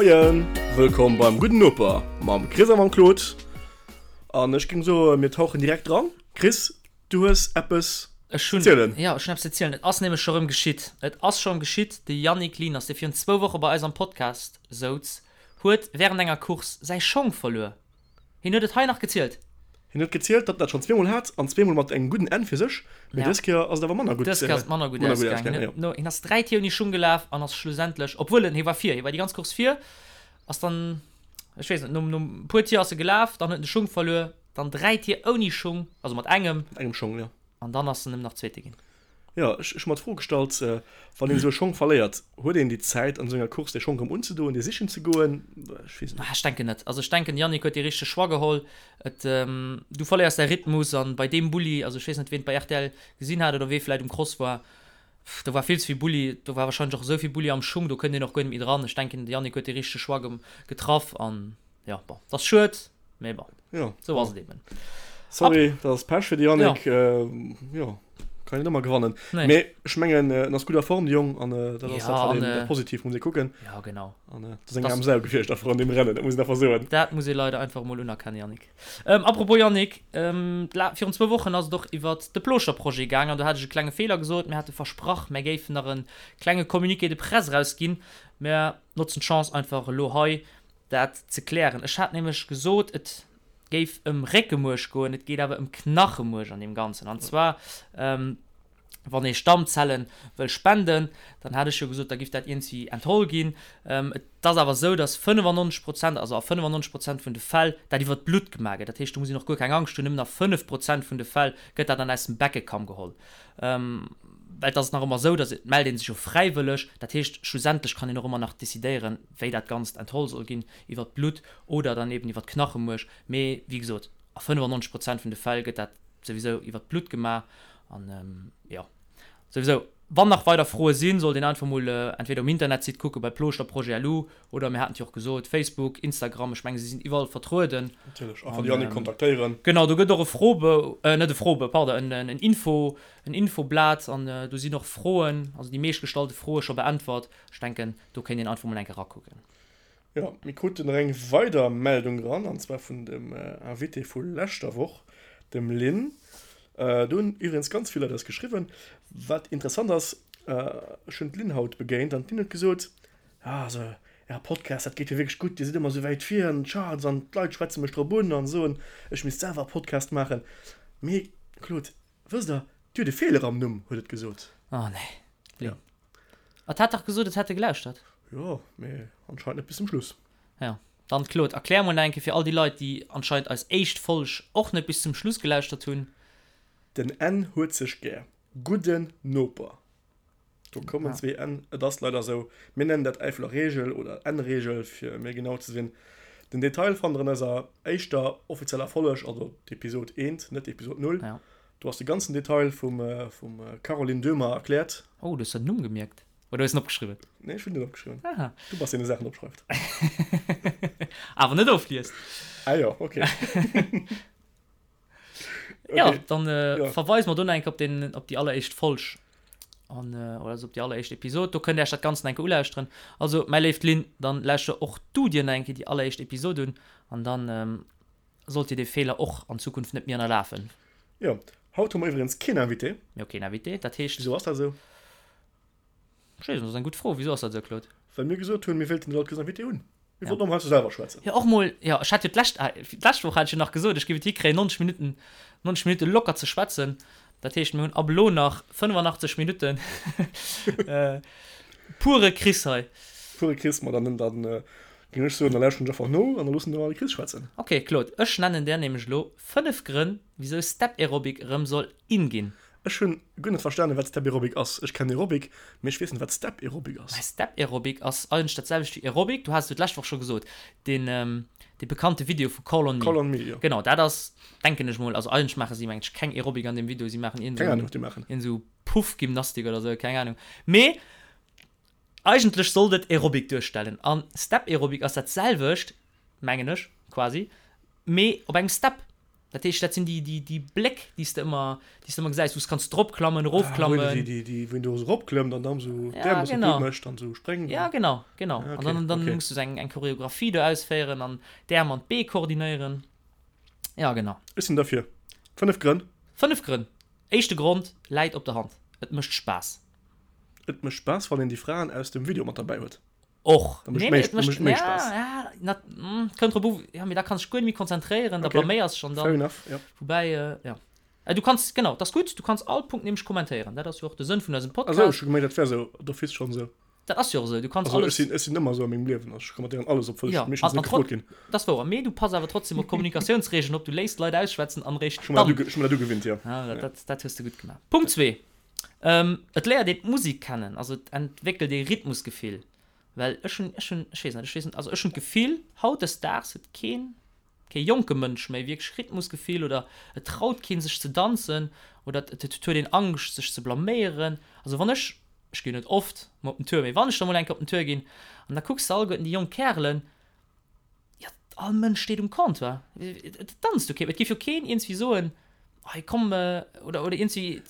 Moien, wëllkomm beim Gudden Noper mam Chris a mam Claude. An ech géing soen, mir tauchen direkt dran. Chris, du hues eppes Ech hunn, ze zielen. jo, ech hunn eppes ze zielen. Et ass nämlech scho rëm geschitt. Et ass scho rëm geschitt, De Yannick Lieners, dee virun zwou Woche bei eis am Podcast souz, huet wärend enger Course säi Schong verluer. Hien huet et hei nach gezielt. Hien huet gezielt, datt en dat schonn zweemol hat, an zweemol mat engem gudden Enn fir sech, mee Ja. dës Kéier ass et awer manner gutt, Dës Kéier ass et manner gutt manner gutt ausgaangen. ausgaangen, Hien jo. huet no, hien ass 3 Tier ouni Schung gelaf an ass schlussendlech, obwuel en, hie war vir, hie war déi ganz Course vir, ass dann, ech weess net, nom, nom puer Tier ass e gelaf, dann huet en de Schung verluer, dann 3 Tier ouni Schung, also mat engem. Mat engem Schong, jo. An dann ass en nëmmen nach Zweete ginn. Jo, ech hu mer d'Fro gestallt, wann een esou e Schong verléiert, huet een déi Zäit an esou enger Course dee Schong erëm unzedoen, dee sichen ze goen? Ech weess et net. Ech denken net. Also ech denken, de Yannick huet dee richtege Choix geholl. Et, du verléiers däi Rhythmus an bei deem Bulli, also ech weess net, ween et bei rtl gesinn hat oder wee vläit um Cross war, do war vill ze vill Bulli, do war wahrscheinlech och esou vill Bulli am Schung, do kënnt een och guer net méi dran. Ech denken, de Yannick huet dee richtege Choix getraff an jo, bon, et ass schued, mee bon. Ja, Sou ass et eben. Sorry, dat ass Pech fir de Yannick. Ja. Jo, kann een net ëmmer gewannen. Nee. Mee ech mengen, en ass gutt a Form, de Jong, an dat ass Ja, dat, wat an, een äh, positiv muss ee kucken. Ja, genau. An dat ass eng aarm Sau gewiescht einfach an deem Rennen, dat muss een einfach soen. Dat muss ee leider einfach emol unerkennen, Yannick. Ähm, apropos Yannick, ähm, virun zwou Wochen ass et och iwwert de Plooschter-Projet gaang an do hat ech e klenge Feeler gesot. Mir hate versprach, mär géifen nach e klenge Communiqué de presse erausginn. Mär notzen d'Chance einfach elo hei, dat ze klären. Ech hat nämlech gesot, et géif ëm Réckemuerch goen, et geet awer ëm Knachemuerch an deem Ganzen. An zwar, wann ee Stammzelle wëll spenden, dann hat ech jo gesot, da giff dat iergendwéi entholl ginn. Et ass awer esou, datt 95 Prozent, also a 95 Prozent vun de Fäll, dat iwwer d'Blutt gemaach gëtt. Dat heescht, do muss een och guer keng Angscht hunn, nëmmen a 5 Prozent vun de Fäll gëtt dat dann aus dem Beckekamm geholl. Well et ass nach ëmmer esou, datt et mellt ee sech jo fräiwëlleg, dat heescht, schlussendlech kann een och ëmmer nach decidéieren, wéi dat Ganzt entholl soll ginn, iwwer d'Blutt oder dann eben iwwer d'Knachemuerch. Mee wéi gesot, a 95 Prozent vun de Fäll gëtt dat souwisou iwwer d'Blutt gemaach. An jo, souwisou, wann nach weider Froe sinn, sollt een einfach mol entweder um Internetsite kucke bei plooschter-projet.lu oder mir haten et jo och gesot, Facebook, Instagram, ech menge si sinn iwwerall vertrueden. Natierlech, einfach de Yannick kontaktéieren. Genau, do gëtt och e Froebou, net e Froebou, pardon, en Info, en Infoblat an do sinn och Froen, also déi meeschtgestallte Froe scho beäntwert. Ech denken, do kéint een einfach mol eng Kéier rakucken. Jo, mir kruten nach eng weider Meldung eran, an zwar vun dem Invité vu leschter Woch, dem Lynn. Do hunn iwwregens ganz vill Leit eis geschriwwen. Wat interessant ass, ech hunn d'Lynn haut begéint an d'Lynn huet gesot, Ah, also Äre Podcast, dat geet jo wierklech gutt, Dir sidd ëmmer esou wäit vir an den Charts an d'Leit schwätze mech drop un an soen, ech misst selwer e Podcast maachen. Mee Claude, wësst Der, Dir hutt e Feeler am Numm, huet et gesot. Oh nee, Lynn. Et hat dach gesot, et hätt e gelauschtert. Jo, mee anscheinend net bis zum Schluss. Jo, dann Claude, erklär mol nach eng Kéier fir all déi Leit, déi anscheinend eis éischt Folg och net bis zum Schluss gelauschtert hunn. Den N huet sech gär. Gudden Noper. Do kommen zwee N, et ass leider esou. Mir nennen dat Äifeler Reegel oder N-Reegel, fir méi genau ze sinn. Den Detail fannt der an eiser éischter offizieller Folg, also d'Episod eent, net d'Episod null. Do ass de ganzen Detail vum Caroline Döhmer erkläert. Oh, du hues der den Numm gemierkt? Oder hues en opgeschriwwen? Nee, ech hunn net opgeschriwwen. Aha. Du bass deen, dee Saachen opschreift. Awer net ofliest. Ah jo, okay. Okay. Ja, dann äh, ja. verweisen wir do nach eng op den op déi alleréischt Folg an äh, oder also op déi alleréischt Episod. Do kënnt Dir Iech dat Ganzt nach eng Kéier ulauschteren. Also, mäi léift Lynn, dann lauschter och du dir nach eng Kéier déi alleréischt Episod un an dann ähm, sollt dir dee Feeler och an Zukunft net méi ënnerlafen. Jo, haut hu mer iwwregens keen Invité. Mir hu keen Invité, dat heescht. Wisou ass dat esou? Ech weess net, dat ass eng gutt Fro. Wisou ass dat esou, Claude? Well mir gesot hunn, mir wéilten net all Kéiers Invité hunn. Mir wollten och mol heiansdo selwer schwätzen. Jo, och mol, jo, ech hat jo d'lescht, d'lescht Woch hat ech jo nach gesot, ech géif et hikréien, 90 Minutten, 90 Minutte locker ze schwätzen. Dat heescht, mir hunn ab elo nach 85 Minutten pure Chris hei. Pure Chris, ma dann, dann géing ech soen, da lauschteren ech einfach no an da loossen mer de Chris schwätzen. Ok, Claude, ech nennen där nämlech elo 5 Grënn, wisou Step Aerobic erëm soll in ginn. Ech hunn guer net verstanen wat Step Aerobic ass. Ech kennen Aerobic, mee ech weess net wat Step Aerobic ass. Mä Step Aerobic ass eigentlech dat selwecht wéi Aerobic. Du has et jo d'lescht Woch scho gesot, deen dee bekannte Video vu Call on Me. Call on Me, jo. Genau, dat ass, denken ech mol, also eigentlech maache si mengen ech keng Aerobic an deem Video, si maachen iergend Keng Ahnung wat déi maachen. iergend esou Puffgymnastik oder esou, keng Ahnung. Mee eigentlech sollt et Aerobic duerstellen an Step Aerobic ass dat selwecht, mengen ech, quasi, mee op engem Step. Dat heescht, dat sinn déi, déi, déi Bléck, déi s de ëmmer, déi s de ëmmer gesäis, wou s kanns dropklammen, erofklammen. Ah, wou een déi, déi, wou een do esou eropklëmmt an dann esou Ja, d'Äerm e bëssen genau. gutt mécht an esou spréngt Ja, an. genau, genau. Ah, An okay, dann, dann okay. muss du esou eng, eng Choreographie do ausféieren an d'Äerm an d'Bee koordinéieren. Ja, genau. Ech sinn derfir. 5 Grënn. 5 Grënn. Éischte Grond läit op der Hand, Et mécht Spaass. Et mécht Spaass, wann een déi Fraen aus dem Video mat derbäi huet. Och. Da mécht Nee, méi, mee et da mécht, mécht méi ja, Spaass. ja, na, mm, kënnt drop u, ja, mee da kanns dech guer net méi konzentréieren, da Okay, blaméiers dech an fair dann, enough, ja. woubäi, ja. Du kanns, genau, dat ass gutt, du kanns all Punkt nämlech kommentéieren, dat ass jo och de Sënn vun eisem Ah sou, Podcast. ech hu gemengt, dat wär sou d'office schonn esou. Dat ass jo och esou, du kanns Also ech alles. sinn, ech sinn ëmmer esou a mengem Liewen, also ech kommentéieren alles, obwuel ech Ja, meeschtens an, net an gefrot trot, ginn. dat ass wouer, mee du pass awer trotzdem op d'Kommunikatiounsregeln op, du léiss d'Leit ausschwätzen an eréischt Ech hu mer dat dann. uge, ech hu mer dat ugewinnt, jo. Ja, dat, Ja. dat, dat hues de gutt gemaach. Punkt zwee, Et léiert een d'Musek kennen, also et entwéckelt ee Rhythmusgefill. Well ech hunn, ech hunn, ech weess net, ech weess net, also ech hunn d'Gefill, hautdesdaags huet keen, kee jonke Mënsch méi wierklech Rhythmusgefill oder et traut keen sech ze danzen oder et et huet een Angscht sech ze blaméieren. Also wann ech, ech ginn net oft mol op den Tour, mee wann ech da mol eng Kéier op den Tour ginn an da kucks de alleguerten déi jonk Kärelen, Jo, all Mënsch steet um Comptoir. Et danzt jo kee. Et géif jo keen iergendwéi soen, hei komm, oder, oder iergendwéi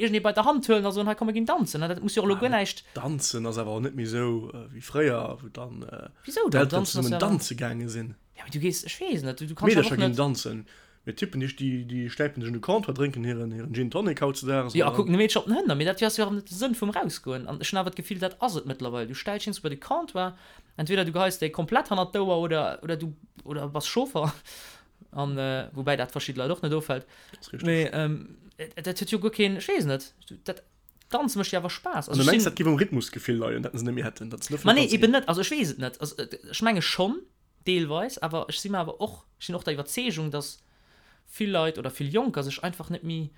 iergendee bei der Hand huelen a soen, hei komm mir ginn danzen. Dat muss jo och elo guer näischt. Danzen ass awer och net méi esou wéi fréier, wou dann Wisou dann? d'Elteren zesummen danze gaange sinn. Ja, mee du gees, ech weess net, du kanns awer D'Meedercher och net. ginn danzen. Mee d'Typen, déi, déi stäipen sech un de Comptoir, drénken hiren, hiren Gin Tonic hautzedaags. Jo, a kucken de Meedercher op den Hënner. Mee dat ass jo awer net de Sënn vum Rausgoen. An ech hunn awer d'Gefill, dat ass et mëttlerweil. Du stells dech bei de Comptoir, entweder du geheis déi komplett hannert d'Ouer oder, oder du, oder bass Chauffer. An, woubäi dat verschidde Leit och net offält. Dat ass richteg. Mee dat huet jo guer keen, ech weess net, dat Danze mécht jo awer Spaass. An du mengs, dat géif um Rhythmusgefill leien, dat se net méi hätten, datt se net Ma nee, eben net. Also ech weess et net. Also ech menge schonn. Deelweis, awer ech si mer awer och, ech sinn och der Iwwerzeegung, dass vill Leit oder vill Jonker sech einfach net méi,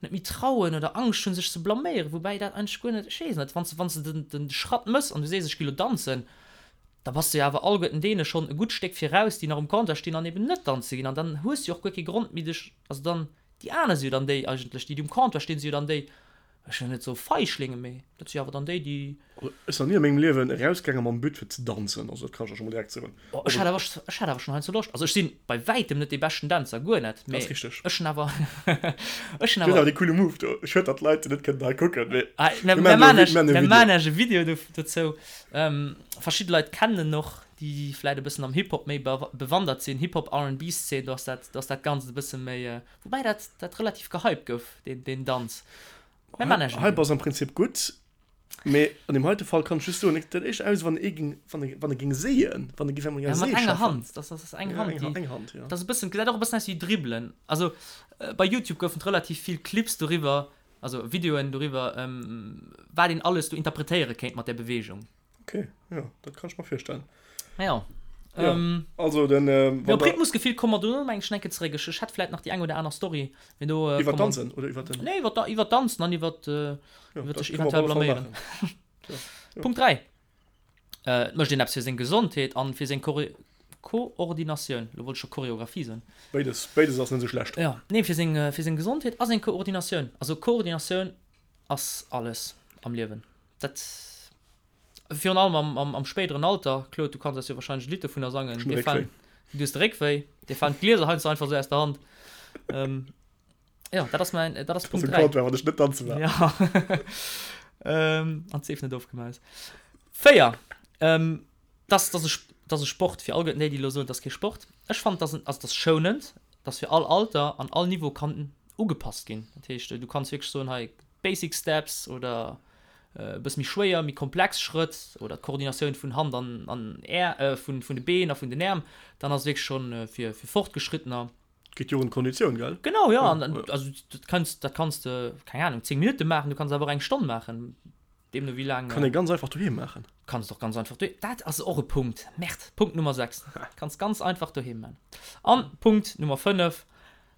net méi trauen oder Angscht hunn, sech ze blaméieren, woubäi dat eigentlech guer net, ech weess net, wann s de, wann s de den Schratt mëss an du sees, ech gi lo danzen, da bass de jo awer alleguerten deene schonn e gutt Stéck viraus, déi nach um Comptoir stinn an eben net danze ginn. An dann hues de jo och guer kee Grond méi dech, also dann, déi aner si jo dann déi eigentlech, déi, déi um Comptoir stinn, si jo dann déi, Ech wëll net soe Feichlinge, mee dat si awer dann déi, déi. Ech sinn nach ni a mengem Liewen erausgaange mam But fir ze danzen, also dat kann ech der scho mol direkt soen. Oh, ech hat awer, ech hat awer schonn heiansdo Loscht. Also ech si bei wäitem net dee beschten Dänzer, guer net, mee Dat ass richteg. ech hunn awer, ech hunn Du hues awer. awer dee coole Move do. Schued, datt d'Leit net kënnen hei kucken, mee Ah, mir mir maachen maachen do e iech, Vi-, mir maachen e mir Video. maachen iech e Video do, dozou. Verschidde Leit kennen en och, déi vläit e bëssen am Hip-Hop méi bewandert sinn, Hip-Hop, R&B-Szene, do ass dat, do ass dat Ganzt e bësse méi, Woubäi dat, dat relativ gehypt gouf, deen, deen Danz. Mä man ech Hype ass am Prinzip gutt, mee an deem heite Fall kann ech just soen, et gesäit éischter aus, wann ee géing, wann e, wann e géing séien, wann e géif eng Ja, mat Séi enger schaffen. Hand, das, das ass eng Ja, Hand, eng, déi, eng Hand, ja. das ass e bëssen, gesäit och e bëssen aus wéi Dribbelen. Also bei YouTube goufen et relativ vill Clips doriwwer, also Videoen doriwwer, wat een alles do interpretéiere kéint mat där Beweegung. Okay, ja, dat kann ech mer virstellen. Ja. Ja, ähm, also den äh, ja, op Rhythmusgefill komme mer dono meng ech enke zeréck. Ech, ech hätt vläit nach déi eng oder aner Story, mee do äh, iwwer Danzen oder iwwer den Nee, iwwer iwwer Danzen an iwwer äh, ja, iwwer sech eventuell blaméieren. ja, ja. Punkt 3. Äh, et mécht een eppes fir seng Gesondheet an fir seng Chore Koordinatioun. Lo wollt ech scho Choreographie soen. Béides, béides ass net esou schlecht. Ja, nee, fir seng, fir seng Gesondheet a seng Koordinatioun. Also Koordinatioun ass alles am Liewen. Dat virun allem am, am, am spéideren Alter, Claude, du kanns eis jo wahrscheinlech e Lidd dovunner sangen. Ech hunn Dir falen, Réckwéi. du hues de Réckwéi, dir falen d'Glieser heiansdo einfach esou aus der Hand. Ähm, ja, dat ass mäin, dat ass Dat ass Punkt e 3. Comptoir, wann ech net danze war. Ja. ähm, an d'Seef net ofgemaus. 4. Ähm, dass, dass e, dass e Sport fir alleguerten déi, déi elo soen, dat ass kee Sport. Ech fannen, dass en, also dass schounend, dass fir all Alter an all Niveau kann ugepasst ginn. Dat heescht, du kanns wierklech soen, hei Basic Steps oder e bësse méi schwéier, méi komplex Schrëtt oder d'Koordinatioun vun Hand an an Är, vun vun de Been a vun den Äerm, dann ass et wierklech schonn fir fir Fortgeschrittener. Geet jo och un d'Konditioun, gell? Genau, jo. An also dat kanns dat kanns de, keng Anung, 10 Minutte maachen, du kanns awer och eng Stonn maachen, deemno wéi laang. Kann ee ganz einfach doheem maachen. Kanns et och ganz einfach doheem, dat ass och e Punkt, Merde, Punkt Nummer 6, kanns ganz einfach doheem maachen. An Punkt Nummer 5,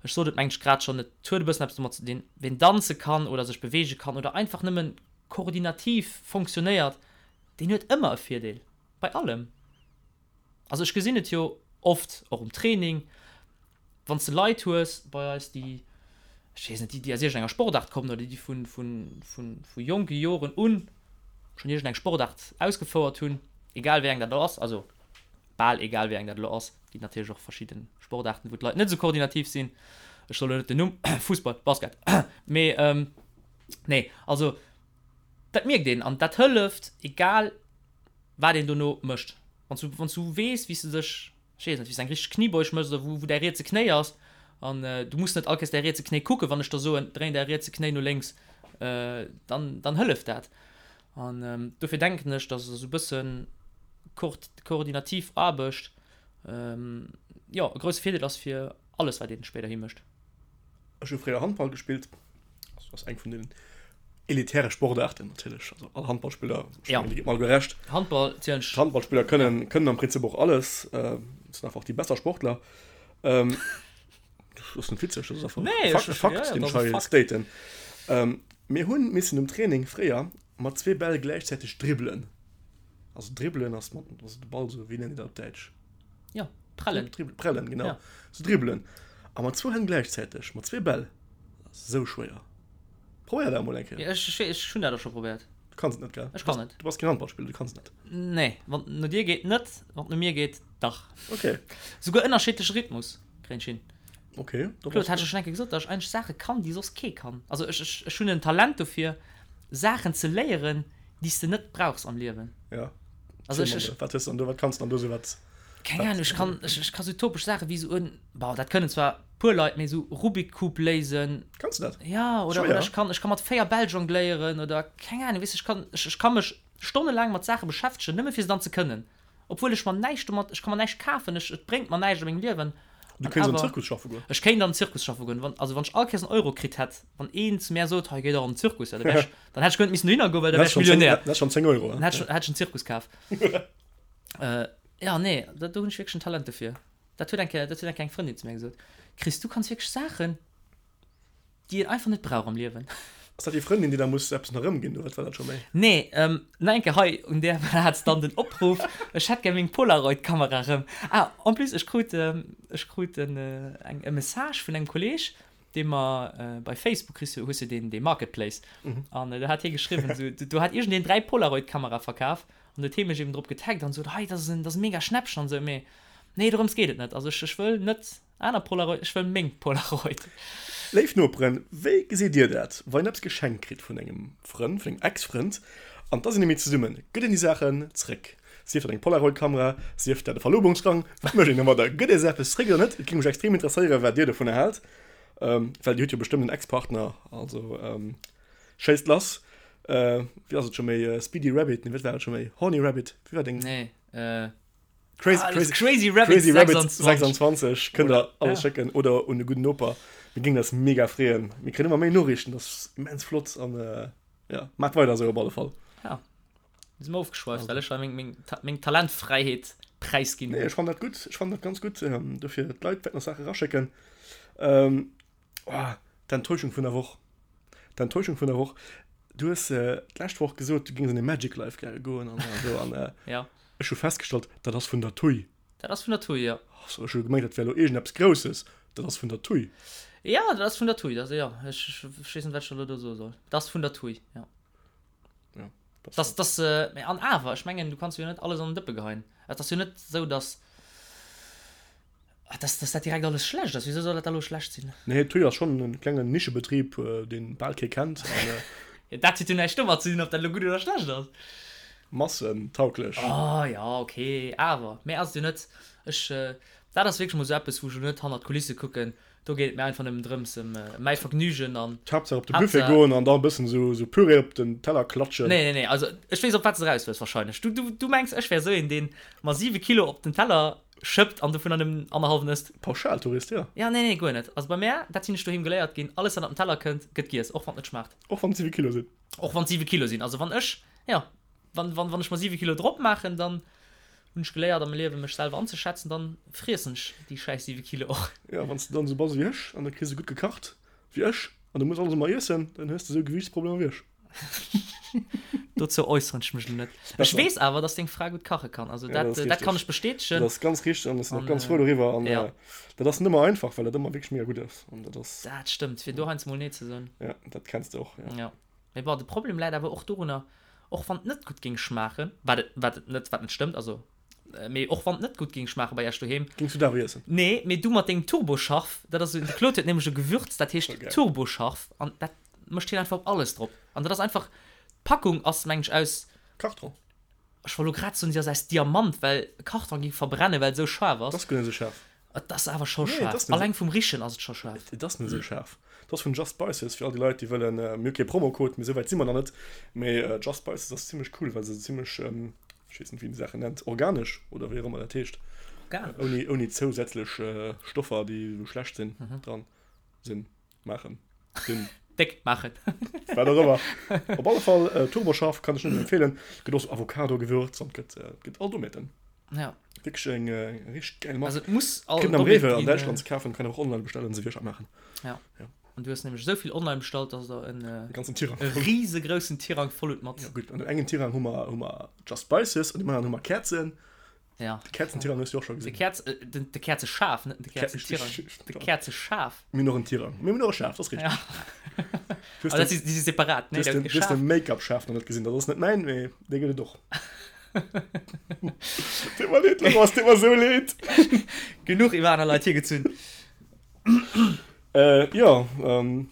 Ech sot et mengen ech grad schonn, et huet e bëssen eppes domat ze dinn, ween danze kann oder sech beweege kann oder einfach nëmmen koordinativ fonctionnéiert, deen huet ëmmer e Virdeel, bei allem. Also ech gesinn et jo oft och um Training, wann s de Leit hues bei eis, déi, ech weess net, déi déi aus iergendenger Sportaart kommen oder déi vu vu vu vu jonke Joren un schonn iergendeng Sportaart ausgefouert hunn, egal wéi eng dat elo ass, also. Bal egal wéi eng dat elo ass. Et ginn natierlech och verschidde Sportaarten, wou d'Leit net esou koordinativ sinn. Ech soll elo net den Numm, Fussball, Basket, mee nee, also dat mierkt een an dat hëlleft, egal wat een dono mécht. Wann s du, wann s du weess, wéi s de dech, ech weess net, wéi s de eng richteg Kniebeuge méchs oder wou, wou däi rietse Knéi ass an du muss net all Kéiers däi rietse Knéi kucken, wann ech der soen, dréin däi rietse Knéi no lénks, dann, dann hëlleft dat. An dofir denken ech, dass esou e bësse koordinativ Aarbecht, jo, e grousse Virdeel ass fir alles, wat ee spéiderhi mécht. Ech hu fréier Handball gespillt. Dat ass eng vun den elitäre Sportaarten natierlech. Also all Handballspiller, ech mengen, Dir gitt mer alleguer Recht. Handball zielen ech. D'Handballspiller kënnen, kënnen am Prinzip och alles. Sinn einfach déi besser Sportler. Dat ass net witzeg, dat ass einfach nee, Fakt, e Fakt, ja, den ech hei staten. Ähm, mir hunn missen um Training fréier mat zwee Bäll gläichzäiteg dribbelen. Also dribbelen ass mat also de Ball so, wéi nennt een dat op Däitsch? Ja, prellen. Dribbel, prellen, genau. Ja. So dribbelen. A mat zwou Hänn gläichzäiteg, mat zwee Bäll. Dat ass esou schwéier. Probéier dat emol eng Kéier. Ja, ech, ech, ech hunn dat och scho probéiert. Du kanns et net, gell? Ech kann net. Du bass keen Handballspiller, du kanns et net. Nee, wann et no dir geet net, wann et no mir geet dach. Okay. Souguer ënnerschiddleche Rhythmus. Kréien ech hin. Okay. Claude, hat ech schon eng Kéier gesot, dass ech eigentlech Saache kann, déi soss kee kann. Also ech, ech, ech hunn en Talent dofir, Saachen ze léieren, déi s de net brauchs am Liewen. Ja. Also ech, ech, Wat hues du dann do, wat kanns du dann do sou wat? Keng Ahnung, ech kann, ech, ech ka sou topesch Saache wéi sou en, bon, dat kënnen zwar puer Leit, mee sou Rubik Cube léisen. Kanns du dat? Ja, oder, oder ech kann, ech kann mat 4 Bäll jongléieren oder keng Ahnung, weess de, ech kann, ech, ech ka mech stonnelaang mat Saache beschäftegen, nëmme fir se dann ze kënnen. Obwuel ech mer näischt domat, ech ka mer näischt kafen, ech, et bréngt mer näischt a mengem Liewen. Du kéints an den Zirkus schaffe goen. Ech kéint an den Zirkus schaffe goen. Wann, also wann ech all Kéiers en Euro kritt hätt, wann een zu mär sot, hei géi dach an den Zirkus, ja, da wär ech, dann hätt ech guer net missen dohinner goen, well da wär ech Millionär. Dann hätt ech schon 10 Euro. Dann hätt ech, hätt ech en Zirkus kaf. Jo, nee, do hunn ech wierklech en Talent dofir. Dat huet eng Kéier, dat huet eng Kéier eng Frëndin zu mär gesot, Chris, du kanns wierklech Saachen, Déi een einfach net brauch am Liewen. Ass dat déi Frëndin, déi da muss eppes nach erëmginn, oder wat war dat scho méi? Nee, nach eng Kéier hei un där Plaz dann den Opruff, Ech hätt gär meng Polaroid-Kamera erëm. Ah, en plus, ech krut, ech krut en, eng, e Message vun engem Kolleg, dee mer bei Facebook, kriss du, hues du deen, dee Marketplace, an do hat hie geschriwwen, esou, do hat iergendeen 3 Polaroid-Kamerae verkaf, an huet hie mech eben drop getaggt an sot, hei, dat ass en, dat ass e mega Schnäppchen an esou, mee nee, dorëms geet et net, also ech, ech wëll net. Aner Polaroid, ech wëll meng Polaroid. Léif Noperen, wéi gesitt dir dat, wann een eppes geschenkt kritt vun engem Frënd, vun engem Ex-Frënd, an da sinn déi méi zesummen, gëtt een déi Saachen zréck? Sief dat eng Polaroid-Kamera, sief dat e Verlobungsrang, wat mécht een domadder? Gëtt ee se eppes zréck oder net? Et géing mech extrem interesséieren, wat dir dovunner haalt, well dir hutt jo bestëmmt en Ex-Partner, also schéisst lass. Wéi ass et scho méi, Speedy Rabbit, nee wat war et scho méi, Horny Rabbit, wéi war deng? Nee, Crazy, ah, crazy, crazy Rabbit, crazy Rabbit 26, 26 kënnt der alles ja. schécken oder un de gudden Noper. Mir géingen eis mega freeën. Mir kréien ëmmer méi Noriichten, dat ass immens flott an äh, ja, maacht weider esou op alle Fall. Ja. Mir sinn ofgeschweift, well ech hei meng, meng, meng Talentfräiheet präisginn Nee, ech fannen dat gutt, ech fannen dat ganz gutt. Ähm, dofir d'Leit wäerten nach Saache raschécken. Ähm, oh, d'Enttäuschung vun der Woch. D'Enttäuschung vun der Woch. Du hues äh, d'lescht Woch gesot, du géings an de Magic Life gäre goen an esou an äh, Ja. Ech hu festgestallt, dat ass vun der TUI. Dat ass vun der TUI, jo. Oh, ech hu gemengt, dat wär elo iergendeppes Grousses. Dat ass vun der TUI. Jo, dat ass vun der TUI. Dat, jo, ech, ech weess net, wat ech elo do soe soll. Dat ass vun der TUI, jo. Jo, dat ass. Dat, dat, mä an awer, ech mengen, du kanns jo net alles an den Dëppe geheien. Et ass jo net esou, datt. Dass, dass dat direkt alles schlecht ass, wisou soll dat da lo schlecht sinn? Nee, TUI ass schonn en klengen Nischebetrib, deen bal kee kennt an. Jo, dat huet jo näischt domat ze dinn, ob dat lo gutt oder schlecht ass. Massentauglech. Oh jo, ok, awer méi ass et jo net. Ech, dat ass wierklech mol sou eppes, wou ech lo net hannert d'Kulisse kucken. Do geet et mir einfach nëmmen drëms, ëm mäi Vergnügen an. D'Haaptsaach op de Buffet goen an da e bëssen sou, sou Püree op den Teller klatschen. Nee, nee, nee, also ech weess, op wat s de eraus wëlls wahrscheinlech. Du, du, du mengs, ech wär sou een, deen mer 7 Kilo op den Teller Schëppt an dovunner nëmmen annerhallwen ësst. Pauschaltourist, jo. Ja, nee, nee, guer net. Also bei mär, dat sinn ech doheem geléiert ginn, alles wat op den Teller kënnt, gëtt giess, och wann et net schmaacht. Och wann et 7 Kilo sinn? Och wann et 7 Kilo sinn. Also wann ech, jo, wann, wann, wann ech mer 7 Kilo drop maachen, dann hunn ech geléiert a mengem Liewen mech selwer anzeschätzen, dann friessen ech déi schäiss 7 Kilo och. Jo, wann s de dann esou bass ewéi ech an du kriss esou gutt gekacht wéi ech an du muss alles ëmmer iessen, dann hues de esou Gewiichtsproblemer wéi ech. Dozou äusseren ech mech elo net. Ech weess awer, dass deng Fra gutt kache kann. Also Ja, dat, dat ass dat kann richteg. ech bestätegen. Dat ass ganz richteg an ech sinn och An, ganz frou doriwwer. An ja. dat ass net ëmmer einfach, well dat ëmmer wierklech mega gutt ass. An dat ass. Dat stëmmt, fir do heiansdo mol Nee ze soen. Ja, dat kenns de och, ja. Ja. Mee bon, de Problem läit awer och dorunner, och wann et net gutt géing schmaachen, wat et, wat et net, wat net stëmmt, also. Mee och wann et net gutt géing schmaache bei iech doheem. Géings du dat awer iessen? Nee, mee du mat dengem Turboscharf, dat ass, de Claude huet nämlech e Gewürz, dat heescht Turboscharf an dat mécht hien einfach op alles drop. An dat ass einfach, d'Packung ass mengen ech aus. Karton. Ech wollt lo grad soen, si ass aus Diamant, well Karton géing verbrennen, well et esou schaarf ass. Et ass guer net esou schaarf. Et ass awer scho schaarf. Alleng vum Richen ass et scho schaarf. Et ass net esou schaarf. Et ass vun Just Spices, fir all déi Leit, déi wëllen, mir hu kee Promocode, mee esou wäit si mer nach net, mee Just Spices ass zimmlech cool, well se zimmlech, ech weess net, wéi een déi Saachen nennt, organesch oder wéi och ëmmer dat heescht, Organesch? ouni zousätzlech Stoffer, déi esou schlecht sinn, dran sinn. Maachen. Sinn. Déck maachen. Wat och ëmmer. Op alle Fall, äh, Turboscharf kann ech nëmmen empfehlen. Gëtt och so Avocado-Gewürz an gëtt, äh, gëtt all Domäten. Ja. Wierklech eng, äh, eng richteg geil Mark. Also et muss all Kritt een am Rewe an Däitschland ze kafen, kann een och online bestellen, se wierklech maachen. Ja. Ja. An du hues nämlech esou vill online bestallt, dass der en, äh, ganzen Tirang e riesegroussen Tirang voll hutt mat. Ja, gutt. An dem engen Tirang hu mer, hu mer Just Spices, an dem aneren hu mer Käerzen. Ja. De Käerzentirang hues du och scho gesinn. De Käerz, äh, den, de Käerzeschaf, net de Käerzentirang. De Käerzeschaf. Mir hunn och en Tirang. Mir hunn och e Schaf, dat ass richteg. Ja. Du hast den, déi si separat, ne? Du hast den, du hast den Make-up-Schaf nach net gesinn. Dat ass net mäin, mee dee gëtt et och. Deet mer leed, Laurent, et deet mer esou leed. Genuch iwwer aner Leit hiergezunn. Äh, jo, ähm.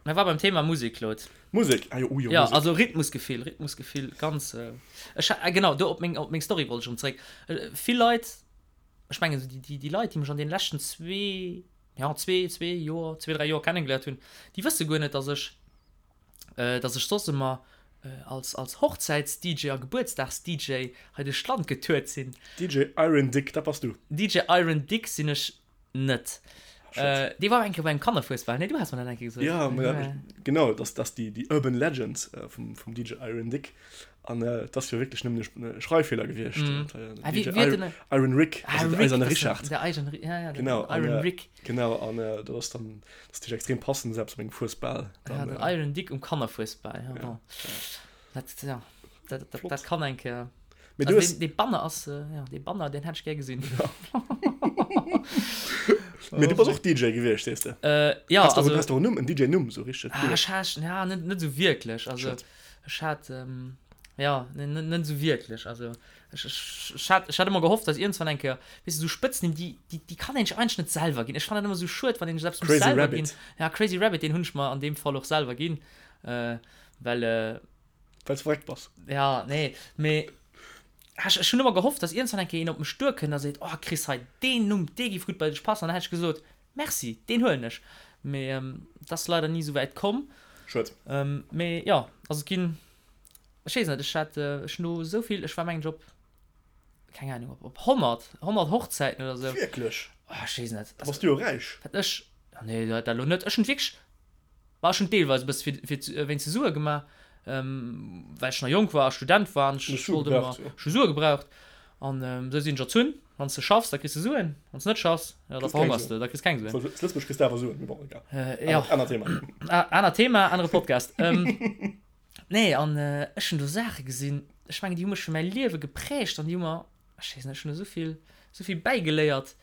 Mir war beim Thema Musek, Claude. Musek, ah jo, oh jo, Ja, also Rhythmusgefill, Rhythmusgefill, ganz, äh, ech ha, genau, do op meng, op meng Story wollt ech erëm zréck. Vill Leit, ech mengen esou déi, déi, déi Leit, déi mech an deene leschten zwee, ja, zwee, zwee Joer, zwee, dräi Joer kennegeléiert hunn, déi wësse guer net, dass ech, dass ech soss ëmmer als, als Hochzäits-DJ a Gebuertsdags-DJ hei duerch d'Land getourt sinn. DJ Iron Dick, dat bass du. DJ Iron Dick sinn ech net. Äh, dee war eng Kéier bei engem Kannerfuesbal, nee? Du has mer dat eng Kéier gesot. Ja, ma ja, genau, das, das déi, déi Urban Legend äh, vum, vum DJ Iron Dick. An äh, das ass jo wierklech nëmmen e Schreiffeeler gewiescht. Mm. Äh, Ah, wie, DJ wie hat Iron, den, Iron Rick, ah, also der Rick, eiserne das ist Richard. der eiserne, ja, ja, den Genau, an, Iron äh, Rick. genau, an äh, dat ass dann, das ist natürlich extrem passend, selbst op engem Fuesbal. Ja, Dann, den äh, Iron Dick um Kannerfuesbal, ja, ja, bon. Dat, ja, dat, dat, Flott. dat kann eng Kéier. Mee du Also hues, deen, dee Banner ass, äh, ja, dee Banner, deen hätt ech gär gesinn. Mee du bass och DJ gewiescht, sees de? Äh, ja, Has du, also. has du och en Numm, en DJ-Numm, sou richteg Ah, cool? ech hat, ja, net, net sou wierklech. Also, Schued. ech hat, ähm, ja, ne, net, net sou wierklech. Also, ech, ech, ech hat, ech hat ëmmer gehofft, dass iergendwann eng Kéier, weess de, sou Spëtznimm, déi, déi, déi kann een sech eigentlech net selwer ginn. Ech fannen dat ëmmer sou schued, wann een sech eppes muss Crazy selwer ginn. Rabbit. Ja, Crazy Rabbit, deen hunn ech mer an deem Fall och selwer ginn, äh, well, äh, Well s verréckt bass. Ja, nee, mee ech, ech hunn ëmmer gehofft, dass iergendwann eng Kéier een op mech duerkënnt a seet, Oh Chris, hei, deen Numm, dee géif gutt bei dech passen. An dann hätt ech gesot, Merci, deen huelen ech. Mee et ass leider ni esou wäit komm. Schued. Mee jo, also et ginn, ech weess net, ech hat, ech hunn do esou vill, ech war mengen ech op, keng Ahnung, op, op 100, 100 Hochzäiten oder esou. Wierklech? Oh, ech weess net. Da bass du jo räich. Wat ech, nee, dat elo net. Ech hunn wierklech Ma ech hunn deelweis e bësse fir, fir wéinst de Sue gemaach, well ech nach jonk war a Student war an ech wollt ëmmer, ech hu Sue gebraucht. An esou sinn ech erzunn, Wann s de schaffs, da kriss de Suen, wann s de net schaffs, jo, da verhongers de, da kriss keng Suen. Zu Lëtzebuerg kriss de awer Suen, mee bon, egal. Jo. Anert Thema. Anert Thema, anere Podcast. Nee, an ech hunn do Saache gesinn, ech mengen, déi hu mech fir mäi Liewe geprägt an déi hu mer, ech weess net, ech hunn esou vill, esou vill bäigeléiert.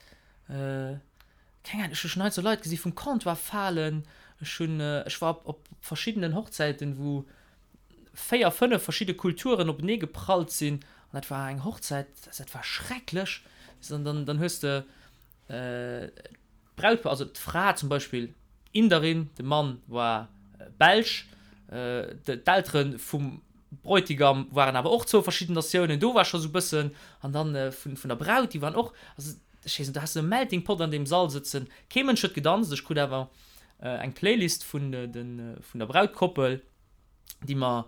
Keng Ahnung, ech hu schon hei sou Leit gesi vum Comptoir falen, ech hunn, ech war op op verschiddenen Hochzäiten, wou 4, 5 verschidde Kulturen openee geprallt sinn an dat war eng Hochzäit, dat war schrecklech. An dann dann hues de d'Brautpaar, also d'Fra zum Beispill Inderin, de Mann war Belsch, d'Eltere vum Bräutigam waren awer och zwou verschidden Natiounen, do war scho sou bëssen, an dann vun vun der Braut, déi waren och, also ech weess net, do has de e Melting Pot an deem Sall sëtzen, kee Mënsch huet gedanzt, ech krut awer eng Playlist vun de vun der Brautkoppel, déi mer,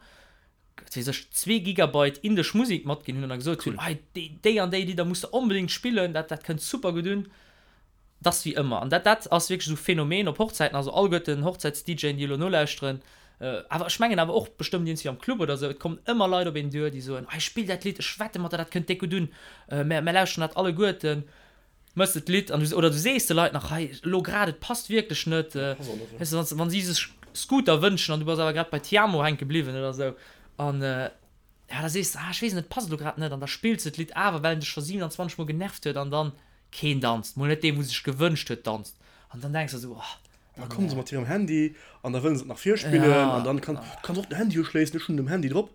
wat weess ech, zwee Gigabyte indesch Musek matginn hunn an da gesot hunn, hei déi déi an déi Lidder muss de onbedéngt spillen, dat dat kënnt super gutt un. 't ass wéi ëmmer, an dat dat ass wierklech esou Phänomen op Hochzäiten, also alleguerten Hochzäits-DJen, déi elo nolauschteren, awer ech mengen awer och bestëmmt iergendwéi am Club oder esou, et kommen ëmmer Leit op een duer, déi soen, hei spill dat Lidd, ech wette mat der, dat kënnt déck gutt un, mär mär lauschteren dat alleguerten, mëss de d'Lidd an du oder du sees de Leit nach, hei elo grad, et passt wierklech net, weess de, wann si sech Scooter wënschen an du bass awer grad bei Tiamo hänke bliwwen oder esou an ja da sees de, ah ech weess net, et passt elo grad net an da spills de d'Lidd awer, well en dech scho 27 mol genervt huet an dann keen danzt, mol net deen wou sech gewënscht huet danzt an dann denks de esou, oh Da kommen se mat hirem Handy an da wëllen se et nach virspillen an dann kann, du kanns och den Handy uschléissen, ech hunn den um Handy drop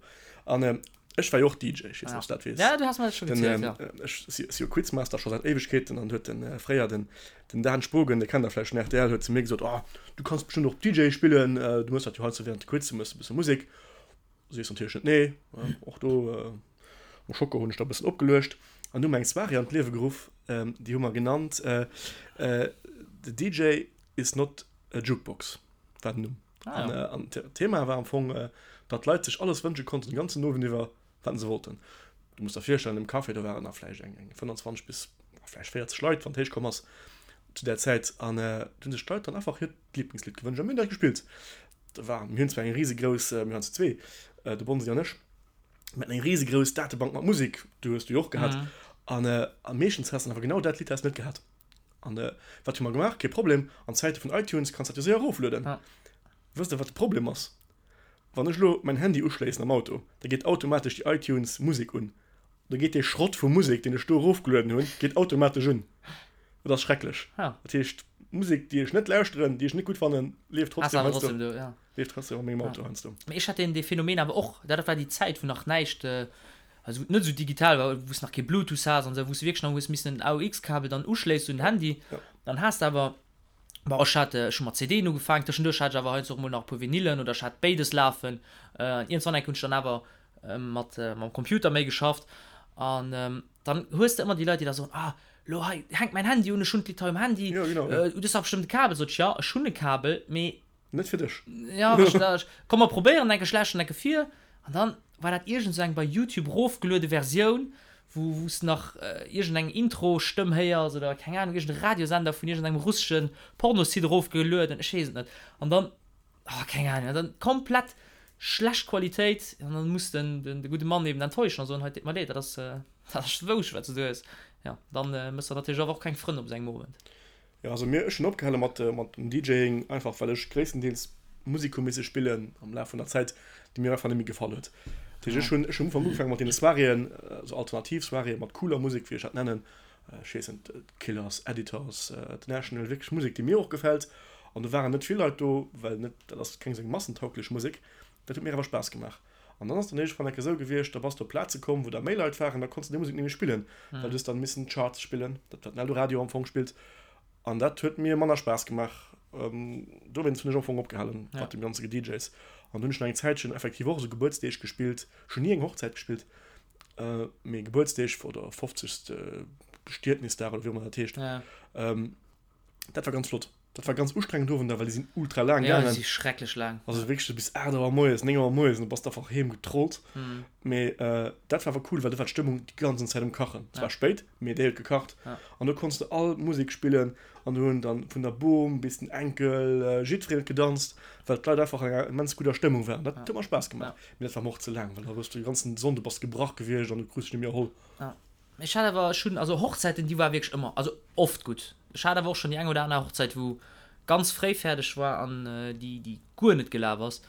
an. Ech war jo och DJ, ech weess net, ob s du dat weess. Ja, du has mer dat scho gezielt, ja. Ech si jo Quizmaster scho säit Éiwegkeeten an huet den fréier den den Dan Spogen, dee kennt der vläicht vun rtl, huet zu mir gesot, Oh, du kanns bestëmmt och DJ spillen, du méchs dat jo heiansdo während de Quiz, du méchs e bësse Musek. Sees natierlech net nee. Och do mam Schocke hunn ech da e bëssen opgeluecht an du hu mer eng Soirée an d'Liewe geruff, déi hu mer genannt The DJ is not a jukebox war den Numm. Ah, ja. An, an d'Thema war am Fong, datt d'Leit sech alles wënsche konnten, den ganzen Owend iwwer, wat se wollten. Du muss der virstellen, im Café, do waren da vläicht eng, eng 25 bis vläicht 40 Leit, wann et héich komm ass, zu där Zäit. An do hunn sech d'Leit dann einfach hiert Lieblingslidd gewënscht a mir hunn dat gespillt. Da war, mir hunn zwar eng risegrouss, mir waren zu zwee, de Bonsi an ech, mir haten eng risegrouss Datebank mat Musek, du hues du jo och gehat. Mhm. An, a meeschtens has de awer genau dat Lidd has de net gehat. An wat hu mer gemaach? Kee Problem, an Zäite vun iTunes kanns dat jo séier eroflueden. Ja. Wësst der wat de Problem ass? Wann ech elo mäin Handy uschléissen am Auto, da geet automatesch déi iTunes Musek un. Da geet dee Schrott vu Musek, deen ech do erofgelueden hunn, geet automatesch un. Dat ass schrecklech. Ja. Dat heescht, Musek, déi ech net lauschteren, déi ech net gutt fannen, leeft Ass trotzdem awer heiansdo, trotzdem do, ja. leeft trotzdem a mengem Ja. Auto heiansdo. Mee ech hat deen, dee Phänomen awer och, dat war déi Zäit, wou nach näischt, also wou et net esou digital war, wou s nach kee Bluetooth has an esou, wou s de wierklech nach hues missen en AUX-Kabel dann uschléissen un den Handy. Ja. Dann has de awer, bon ech hat, ech hu mat CDen ugefaangen, tëschenduerch hat ech awer heiansdo och mol nach e puer Vinylen oder ech hat béides lafen. An iergendwann eng Kéier hunn ech dann awer mat mam Computer méi geschafft an dann hues de ëmmer déi Leit, déi da soen, ah lo hei hänkt mäin Handy un, ech hunn d'Lidd hei um Handy, Ja, genau, ja. du hues dach bestëmmt e Kabel. Sot ech, ja ech hunn e Kabel, mee Net fir dech. Ja, wech da, komm mer probéieren enke schlechten enke vir. An dann war dat iergend sou eng bei Youtube rofgeluede Versioun, wou wou s nach iergend eng Intro-Stëmm héiers oder keng Ahnung, iergend e Radiosender vun iergend engem russeschen Pornosite erofgelueden, ech weess et net. An dann, oh keng Ahnung, an dann komplett schlecht Qualitéit an dann muss den den de gudde Mann eben enttäuschen a soen, hei, deet mer leed, dat ass dat ass wousch wat s du do hues. Jo, dann méchs de natierlech awer och keng Frënn op esou engem Owend. Jo, also mir, ech hunn opgehale mat mat dem DJing, einfach well ech gréisstendeels Musek hu misse spillen am Laf vun der Zäit, déi mir einfach net méi gefall huet. Dat heescht, ech hunn ech hunn am Ufank ugefaange mat deene Soiréeën, also alternativ Soiréeë mat cooler Musek, wéi ech dat nennen, ech weess net, d'Killers, Editors, The National, wierklech Musek, déi mir och gefält. An do waren net vill Leit do, well net, dat ass keng esou eng massentauglech Musek. Dat huet mir awer Spaass gemaach. An dann ass dann iergendwann enke sou gewiescht, da bass de op Plaze komm, wou da méi Leit waren, da konns de déi Musek net méi spillen, well du hues dann missen d'Charts spillen, dat wat den Eldoradio am Fong spillt. An dat huet mir manner Spaass gemaach. Dowéinst hunn ech am Fong opgehalen mat dem ganze Gedjs. An dunn hunn ech nach eng Zäitchen effektiv och esou Gebuertsdeeg gespillt. Ech hunn ni eng Hochzäit gespillt, mee Gebuertsdeeg oder 50. Bestietnisdag oder wéi och ëmmer dat heescht. Dat war ganz flott. Dat war ganz ustrengend Owender, well déi sinn ultra laang Ja, déi gaangen. si schrecklech laang. Also wierklech so bis 8 Auer moies, 9 Auer moies, an du bass einfach heem getrollt. Mhm. Mee äh, dat war awer cool, well do war d'Stëmmung déi ganzen Zäit um Kachen. Es Ja. war spéit, mee déi huet gekacht. Ja. An do konns de all Musek spillen an do hunn dann vun der Bom bis den Enkel äh, jiddwereen huet gedanzt, well d'Leit einfach an enger immens gudder Stëmmung waren. Dat Ja. huet mer Spaass gemaach. Ja. Mee dat war mer och ze laang, well da hues du de ganzen Sonnde bass gebrach gewiescht an du krus dech net méi erholl. Ja. Ech hat awer, ech hunn, also Hochzäiten, déi war wierklech ëmmer, also oft gutt. Ech hat awer och schonn déi eng oder aner Hochzäit, wou ganz fréi fäerdeg war an déi, déi guer net gelaf ass.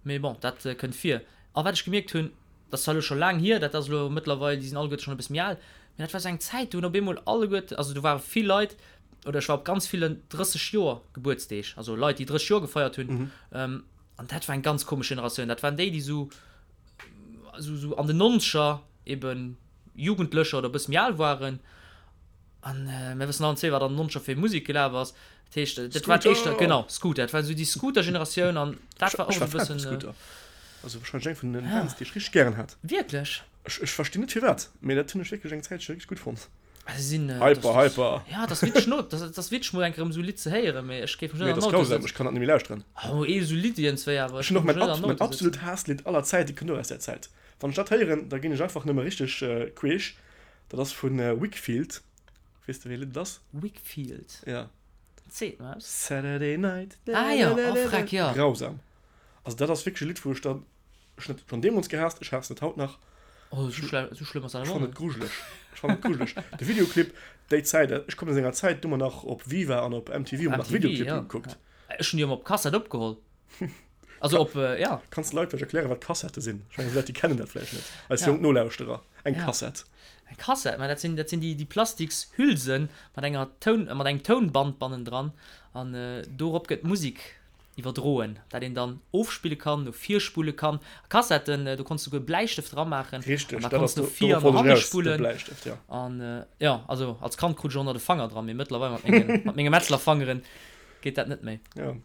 Mee bon, dat kënnt vir. A wat ech gemierkt hunn, dat ass zwar elo scho laang hier, dat ass elo mëttlerweil, déi sinn alleguerte schonn e bësse méi al, mee dat war esou eng Zäit, do hunn op eemol alleguerte, also do ware vill Leit, oder ech war op ganz villen 30 Joer Gebuertsdeeg, also Leit, déi 30 Joer gefeiert hunn, an dat war eng ganz komesch Generatioun. Dat waren déi, déi esou, esou, esou an den Nonzeger eben Jugendlecher oder e bësse méi al waren. An mir wëssen allen zwee, wat an den Nonzeger fir Musek gelaf ass. Dat heescht, dat war éischter, genau, Scooter. Dat war esou déi Scooter-Generatioun an dat war och Ech war esou e Fan vum bëssen. Scooter. Also wahrscheinlech eng vun den Bands, déi ech richteg gären hat. Wierklech? Ech, ech verstinn net firwat, mee dat hunn ech wierklech eng Zäitche richteg gutt fonnt. Also sinn, Hyper, hyper. Ja, dat ass witzeg no, dat ass witzeg mol eng Kéier erëm esou e Lidd ze héieren, mee ech géif mech Nee, net dat an ass den Auto grausam, sëtzen. ech kann dat net méi lauschteren. Oh, ee esou Lidd iergendzwéi awer, Ech ech hunn och géif mech mäin net an ab, den mäin Auto absolut sëtzen. Haasslidd aller Zäite kënnt och aus där Zäit. Wann ech dat héieren, da ginn ech einfach nëmme richteg queesch. Dat ass vu Whigfield. Weess de wéi e Lidd et ass? Whigfield? Ja. Seet mer eppes. Saturday night. Ah jo, oh freck, jo. Grausam. Also dat ass wierklech e Lidd, wou ech dann, ech hunn et schonn deemools gehaasst, ech haassen et haut nach. Oh, esou schlë, esou schlëmm ass dat Ech awer fannen net. et grujeleg. Ech fannen et grujeleg. De Videoclip, déi Zäit, ech kommen aus enger Zäit, do hu mer nach op Viva an op MTV hu mer nach MTV, Videoclippen jo. gekuckt. Ech hunn déi ëmmer op Kassett opgeholl. Also op, ja. Kanns de Leit vläicht erklären, wat Kassette sinn? Ech mengen, déi Leit, déi kennen dat vläicht net. Eis Ja. jonk Nolauschterer. Eng Ja. Kassett. Eng Kassett, mä dat sinn, dat sinn déi, déi plastiks Hülsen mat enger Toun, mat engem Tounband bannendran an dorop gëtt d'Musek Iwwerdroen, dat een dann ofspille kann, no vir spulle kann. A Kassetten, do konns du souguer Bläistëft ramaachen. Richteg, an da dat konns ass du do, no vir dorop an no wollt ech hanne eraus, de spullen. Bläistëft, jo. An jo, also als Kand krut ech och nach de Fanger dran, mee mëttlerweil mat mengen, mat menge Metzlerfangeren geet dat net méi. Jo,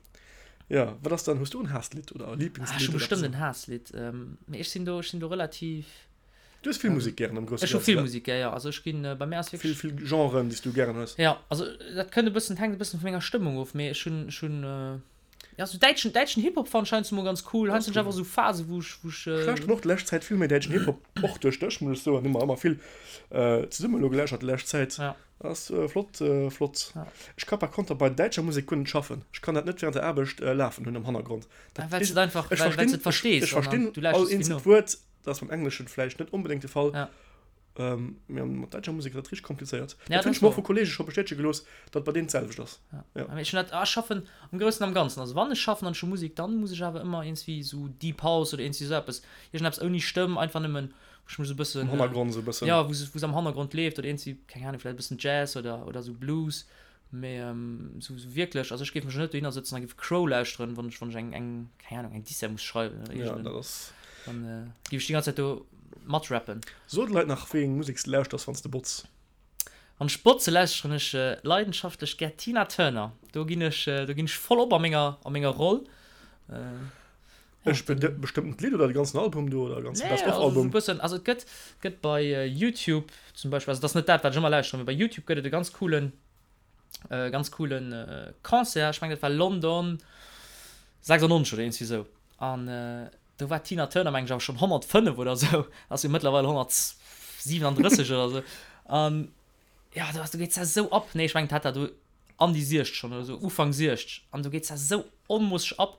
jo. Wat ass dann, hues du en Haasslidd oder e Ah, ech Lieblingslidd hu oder bestëmmt eppes? en Haasslidd, mee ech sinn do, ech sinn do relativ. Du hues vill Musek gären am Grousse Ech hu Ganzen, vill ne? Musek gär, jo. Also ech ginn, bei mir ass Vill, wierklech. vill Genren, déi s du gären hues. Jo, also dat kënnt e bëssen, hänkt e bëssen vu menger Stëmmung of, mee ech hunn, ech hunn, jo sou däitschen, däitschen Hip-Hop fannen ech heiansdo mol ganz cool. Das Heiansdo hunn ech cool. einfach sou Phasen, wou ech, wou ech. Ech lauschteren och d'lescht Zäit vill méi däitschen Hip-Hop, och duerch dech, muss ech soen. Hu mer ëmmer vill zesummen elo gelauschtert déi lescht Zäit. Ja. Ass flott, flott. Ja. Ech ka par konter bei däitscher Musek guer net schaffen. Ech kann dat net während der Aarbecht lafen hunn am Hannergrond. Ah, Dat well s du et einfach, ech well, well s verstinn, du et verstees ech an dann verstinn du all lauschters vill eenzelt no. Wuert. Dat ass beim Engleschen vläicht net onbedéngt de Fall. Ja. Ähm, mee mat däitscher Musek ass dat richteg komplizéiert. Ja, Dat hunn dat ech mer och ass vu Kolleege scho bestätege gelooss, datt bei deenen d'selwecht ass. Ja. Ja. Mee ech hunn dat, ah, ech schaffen am Groussen am Ganzen. Also wann ech schaffen an ech hu Musek, dann muss ech awer ëmmer iergendwéi esou Deep House oder iergendwéi esou eppes, iergendeppes ouni Stëmm, einfach nëmmen, wou ech mech esou e bëssen, Am Hannergrond esou e bëssen. ja, wou se am Hannergrond leeft oder iergendwéi, keng Ahnung, vläicht e bëssen Jazz oder, oder esou Blues. Mee esou wierklech, also ech géif mech jo net dohinner sëtzen a géif Crow lauschteren, wann ech, wann ech eng, eng, keng Ahnung, eng Dissert muss schreiwen oder Ja, iergend en, dat ass. dann géif ech déi ganz Zäit do matrappen. So de Leit nach, wéi eng Musek s de lauschters, wann s de botz. Wann ech botze, lauschteren ech leidenschaftlech gär Tina Turner. Do ginn ech, do ginn ech voll op a menger, a menger Roll. E bestëmmtent Lidd oder de ganzen Album do oder e ganze Nee, Best of also Album? esou e bëssen, also et gëtt, gëtt bei Youtube zum Beispill, also et ass net dat wat ech ëmmer lauschteren, mee bei Youtube gëtt et e ganz coolen, ganz coolen Concert, ech mengen dat war London 96 oder iergendwéi esou an do war d'Tina Turner mengen ech awer schonn 105 oder esou, ass jo mëttlerweil 137 oder esou an jo do ass, do geet se esou ab, nee ech mengen d'hat dat do an déi 60 schonn oder sou, Ufank 60, an do geet se esou onmoosseg ab.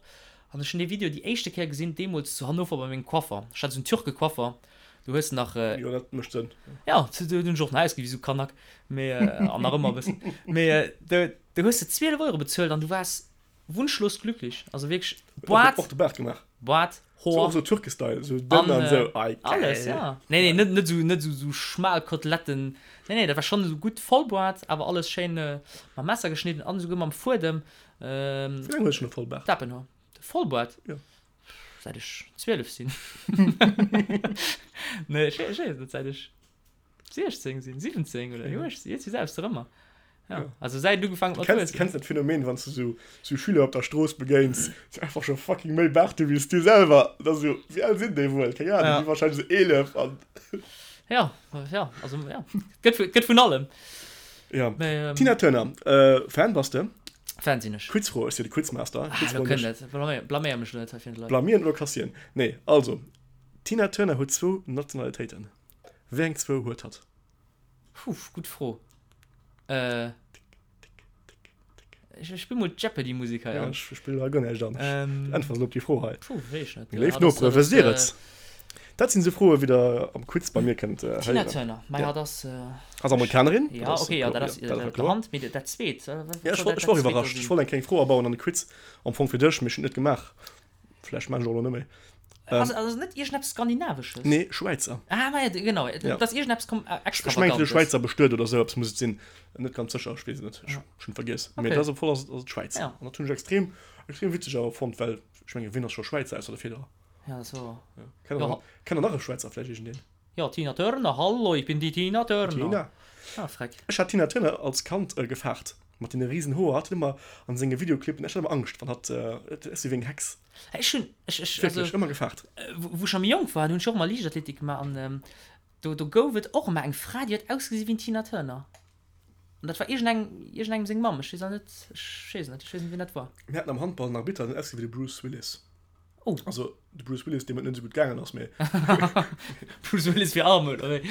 An ech hunn dee Video déi éischte Kéier gesinn deemools zu Hannover bei mengem Coiffer. Ech hat esou en Türke-Coiffer, do hues de nach. Jo, dat mécht Sënn. Jo, do hunn ech och nach ausgesi wéi esou Kanak, mee, an nach ëmmer e bëssen. Mee do, do hues de 12 Euro bezuelt an du waars Wunschlos glücklich, also wierklech Boart. Och de Baart gemaach. Boart, Hoer. So och sou Türke-Style, sou dënn an sou, ei geil. Alles, ja. Nee, nee, net, net sou, net sou, sou schmal Koteletten. Nee, nee, dat war schonn esou gutt Vollboart, awer alles schéin mam Messer geschnidden an esouguer mam Fuedem. Wéi laang hues de schonn e Vollbaart? Dappenhoer. Vollboart? Jo. Säit ech 12 sinn. Nee, ech weess net, säit ech. 16 sinn, 17 oder 18, jetzt selbst ëmmer. Ja, ja. Also säit du gefangen mat kennst, kennst dat Phänomen, wann du so, so Schüler op der Strooss begéins, die einfach schon fucking méi Baart hu wéi du selwer. Da so, wéi al sinn déi wuel? Keng Ahnung, ja. déi wahrscheinlich so 11 an. Ja, ja, also ja. Gëtt, gëtt vun allem. Ja. Mee, ähm, Tina Turner, äh, Fan bass de? Fan sinn ech. Quizfro, ech si de Quizmaster. Ah, lo kënnt et. Blaméier mech lo net hei fir d'Leit. Blamieren oder kassieren? Nee, also, Tina Turner huet zwou Nationalitéiten. Wéi eng zwou huet hatt? Puh, gutt Fro. Äh, ech spill mol d'Jeopardy-Musek hei an. Ja, ech spill hei guer näischt an. Ähm, Äntwert op déi Fro hei. Puh, weess ech net. Meng léif Nopere, wësst Dir et? Dat sinn esou Froe wéi der am Quiz bei mir kënnt héieren. Tina Turner, mei hatt ass. Ass Amerikanerin. Ja, okay, ja, dat ass op der Hand, mee dat zweet. Ja, ech war och iwwerrascht. Ech wollt eng kleng Fro abauen an de Quiz, am Fong fir dech, mee ech hunn et net gemaach. Vläicht maan ech och elo net méi. Ähm, ass, ass net iergendeppes Skandinavesches? Nee, Schwäizer. Ah, ma ja, genau. Ja. Dat ass iergendeppes kom äh, Ech mengen, de Schwäizer bestuet oder sou eppes muss et sinn. Net ganz sécher, ech weess et net. Ech ja. schon vergiess. Okay. Mee dat ass op voll ass, ass et Schwäiz. Ja. An dat hunn ech extrem, extrem witzeg awer fonnt, well ech menge wien ass scho Schwäizer ausser de Federer? Ja, dat ass wouer. Ja. Kennt der, kennt der nach e Schwäizer vläicht iergendeen? Ja, Tina Turner, hallo, ich bin die Tina Turner. Tina. Ah, freck. Ech hat Tina Turner als Kand äh, gefaart. Mat deene riesen Hoer. Hatt huet ëmmer an senge Videoclippen, ech hat ëmmer Angscht, wann hatt, äh, et ass wéi eng Hex. Ech hunn, ech, ech, Wierklech, ëmmer gefaart. Wou ech nach méi jonk war, do hunn ech och ëmmer Liichtathletik gemaach an ähm, do, do gouf et och ëmmer eng Fra, déi huet ausgesi wéi d'Tina Turner. An dat war iergendeng, iergendengem seng Mamm. Ech weess awer net, ech weess et net, ech weess net, wien dat war. Mir haten am Handball en Arbitter, deen huet ausgesi wéi de Bruce Willis. Oh. Also de Bruce Willis, deem et net esou gutt gaangen ass, mee. Bruce Willis fir arm, oder wéi?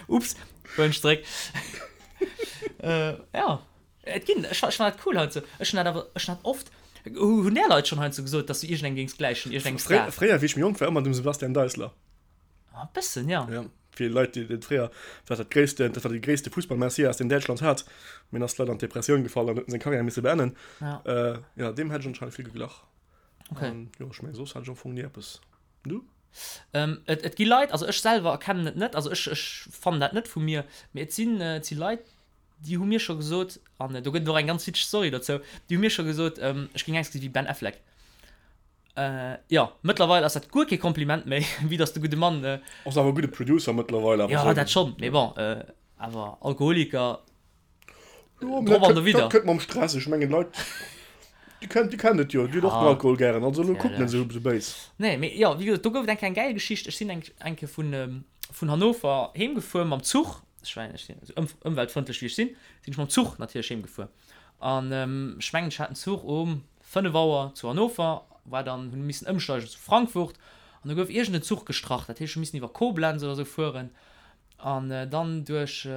Ups, huelen ech zeréck. Äh, ja. Et ginn, ech, ech fannen dat cool heiansdo. Ech hunn dat awer, ech hunn dat oft, hunn där Leit schonn heiansdo gesot, dass du iergendengem géings gläichen, iergendengem Fréier, Star. fréier, wéi ech méi jonk war, ëmmer dem Sebastian Deisler. Ah, e bëssen, ja. Ja, fir Leit, déi dat fréier war dat gréisste, dat war de gréisste Fussballmessias, deen Däitschland hat. Mee en ass leider an d'Depressioun gefall an huet seng Karriär misse beenden. Ja. Äh, ja, deem hätt ech anscheinend vill geglach. Okay. An, jo, ech meng, soss hat ech am Fong ni eppes. Du? Ähm, et, et gi Leit, also ech selwer erkennen et net, also ech, ech fannen dat net vu mir, mee et sinn, et si Leit. Déi hu mir scho gesot, an do gëtt et och eng ganz witzeg Story dozou, déi hu mir scho gesot, ech géing ausgesi wéi Ben Affleck. Jo, mëttlerweil ass dat guer kee Kompliment méi, vue dass de gudde Mann. Ass awer e gudde Producer mëttlerweil awer. Jo, dat schonn, mee bon, awer Alkoholiker, Jo, mee dat kënnt, dat kënnt mam Stress. Ech mengen, Leit, déi kennen, déi kennen et jo, déi hunn och den Alkohol gären, also elo kuckt net esou béis. Nee, mee jo, wéi gesot, do gouf et eng Kéier eng gäil Geschicht. Ech sinn eng, eng Kéier vun, vun Hannover heem gefuer mam Zuch. Ech war, ech sinn esou ëm, ëmweltfrëndlech wéi ech sinn, sinn ech mam Zuch natierlech heem gefuer. An ech mengen, ech hat den Zuch um 5 Auer zu Hannover, war dann, hunn missen ëmsteigen zu Frankfurt an do gouf iergend en Zuch gestrach. Dat heescht, ech hu missen iwwer Koblenz oder esou fueren an dann duerch,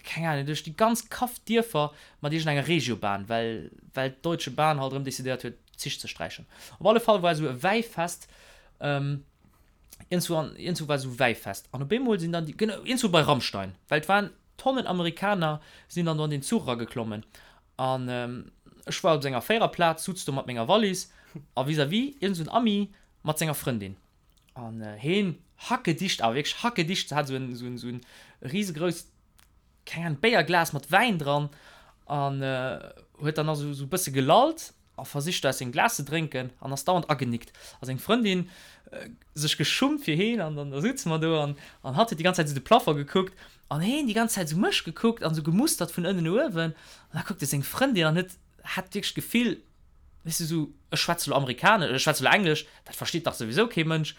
keng Ahnung, duerch déi ganz Kaff Dierfer mat iergendenger Regiobahn, well, well d'Deutsche Bahn halt erëm decidéiert huet, d'Zich ze sträichen. Op alle Fall war esou e Wäifest, iergendzwou an, iergendzwou war esou Wäifest an op eemol sinn dann déi, genau, iergendzwou bei Rammstein, well et waren Tonnen Amerikaner sinn dann do an deen Zuch erageklommen an ech war op senger Véiererplaz, sutz do mat menger Wallis a vis-à-vis iergend esou en Ami mat senger Frëndin. An heen hackedicht, awer wierklech hackedicht, hat esou en, esou en, esou en risegrousst, keng Ahnung, Béierglas mat Wäin dran an huet dann nach esou, esou e bësse gelallt a versicht do aus sengem Glas ze drénken an ass dauernd agenickt. A seng Frëndin sech geschummt fir heen an dann da sutze mer do an, an hatt huet déi ganz Zäit esou de Plafond gekuckt an heen déi ganz Zäit esou mech gekuckt an esou gemustert vun ënnen no uewen an da kuckt e seng Frëndin an huet, hat wierklech d'Gefill, weess de, esou, ech schwätze lo Amerikanesch, ech schwätze lo Englesch, dat versteet dach souwisou kee Mënsch.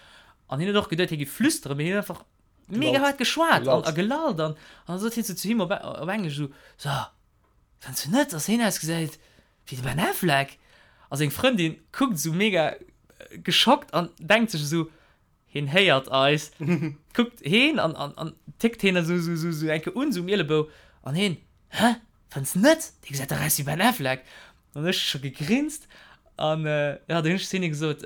An hien huet och geduet, hie géif flüsteren, mee hien huet einfach mega haart geschwat an a gelallt an an da sot hien sou zu him op op Englesch esou, So, fënns du net, dass hien ausgesäit wéi de Ben Affleck? A seng Frëndin kuckt esou mega geschockt an denkt sech esou, Hien héiert eis, kuckt heen an, an, an tickt heen esou, esou, esou, esou eng Kéier un, esou um Ielebou. An heen, Hä? Fënns net? Dee gesäit dach aus wéi Ben Affleck. An ech scho gegrinst. An, jo, du hunn ech zu hinne gesot,